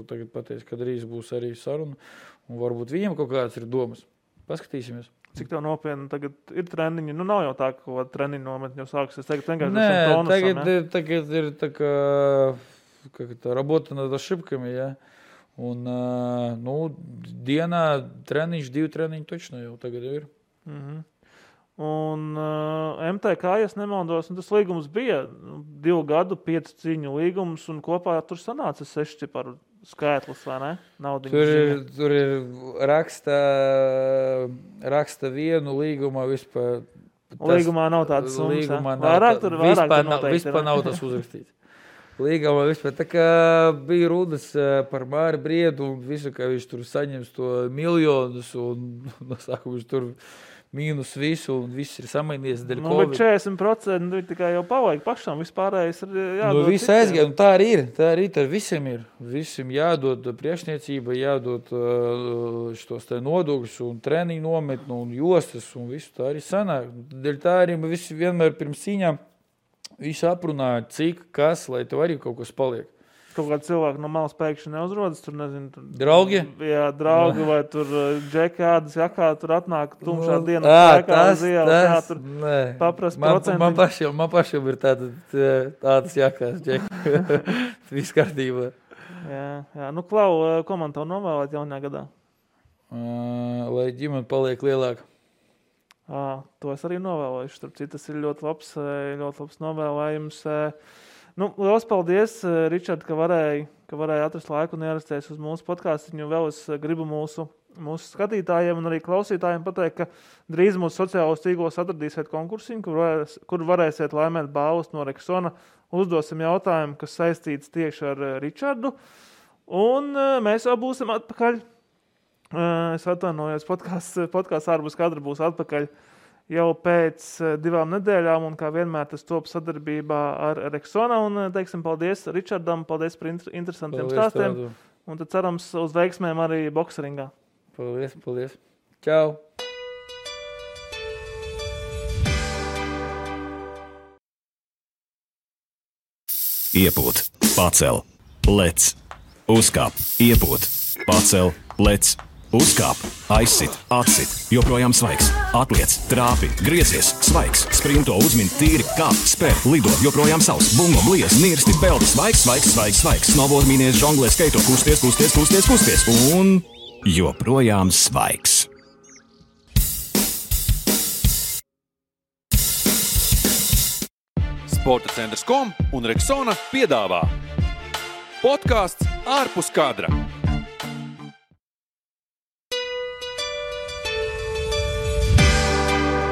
tagad pateiks, kad drīz būs arī saruna, un varbūt viņam kaut kāds ir domas. Paskatīsimies. Cik tev nopietni tagad ir treniņi? Nav jau tā, ka treniņu nometni jau sāksies. Tagad vienkārši tagad ir tā kā работа над ошибками, jā. Un, dienā treniņš, 2 treniņi točno jau tagad jau ir. Un MTK, ja nemaldos, tas līgums bija 2 gadu, 5 cīņu līgums, un kopā tur sanāca 6 ciparu skaitlis, vai ne? Tur ir raksta vienu līgumā vispār. Līgumā nav tādas summas, vispār nav tas uzrakstīts. Līgumā vispār. Tā kā bija runas par Māri Briedu un visu, ka viņš tur saņems to miljonus un no sākuma viņš tur mīnus visu un viss ir samainījies dēļ Covid. Bet 40% tikai jau pavajag pašam, vispārējais ir jādod. Viss aizgāja, un tā arī ir, visiem ir. Visiem jādod priekšniecība, jādod šos te nodokļus un treniņu nometnu un jostas un visu tā arī sanāk. Dēļ tā arī visi vienmēr pirms cīņām visu aprunāja, cik, kas, lai tev arī kaut kas paliek. kaut kādi cilvēki no malas pēkšņi neuzrodas. Tur, nezinu, tur, Draugi? Jā, draugi vai tur džekādas jakā, tur atnāk tumšā dienā. Tas, tur paprast procenti. Man pašam ir tādas jakās, džeki. Viss kārtībā. Jā. Nu, Klau, ko man tev novēlēt jaunajā gadā? Lai ģimene paliek lielāka. To es arī novēlēšu. Starp citu, tas ir ļoti labs novēlējums. Nu, liels paldies, Ričard, ka varēja atrast laiku un ierasties uz mūsu podcastu. Vēl es gribu mūsu skatītājiem un arī klausītājiem pateikt, ka drīz mūsu sociālos tīklos atradīsiet konkursiņu, kur varēsiet laimēt balvas no Rexona. Uzdosim jautājumu, kas saistīts tieši ar Ričardu. Un mēs jau būsim atpakaļ. Es atvainojos, podcasts ārpus kadra būs atpakaļ jau pēc 2 nedēļām, un kā vienmēr tas top sadarbībā ar Rexona, un teiksim paldies Ričardam, paldies par interesantiem stāstiem, un tad cerams uz veiksmēm arī bokseringā. Paldies. Čau! Iepūt, pacel, lec, uzkāp, iepūt, pacel, lec, uzkāp, aizsit, atsit, joprojām svaigs, atliec, trāpi, griezies, svaigs, sprinto, uzmin, tīri, kāp, spēr, lido, joprojām savs, bungo, bliez, nirsti, peldi, svaigs, snowboard, mīnies, žonglē, skaito, kusties, un joprojām svaigs. Sporta centrs.com un Rexona piedāvā podcasts ārpus kadra.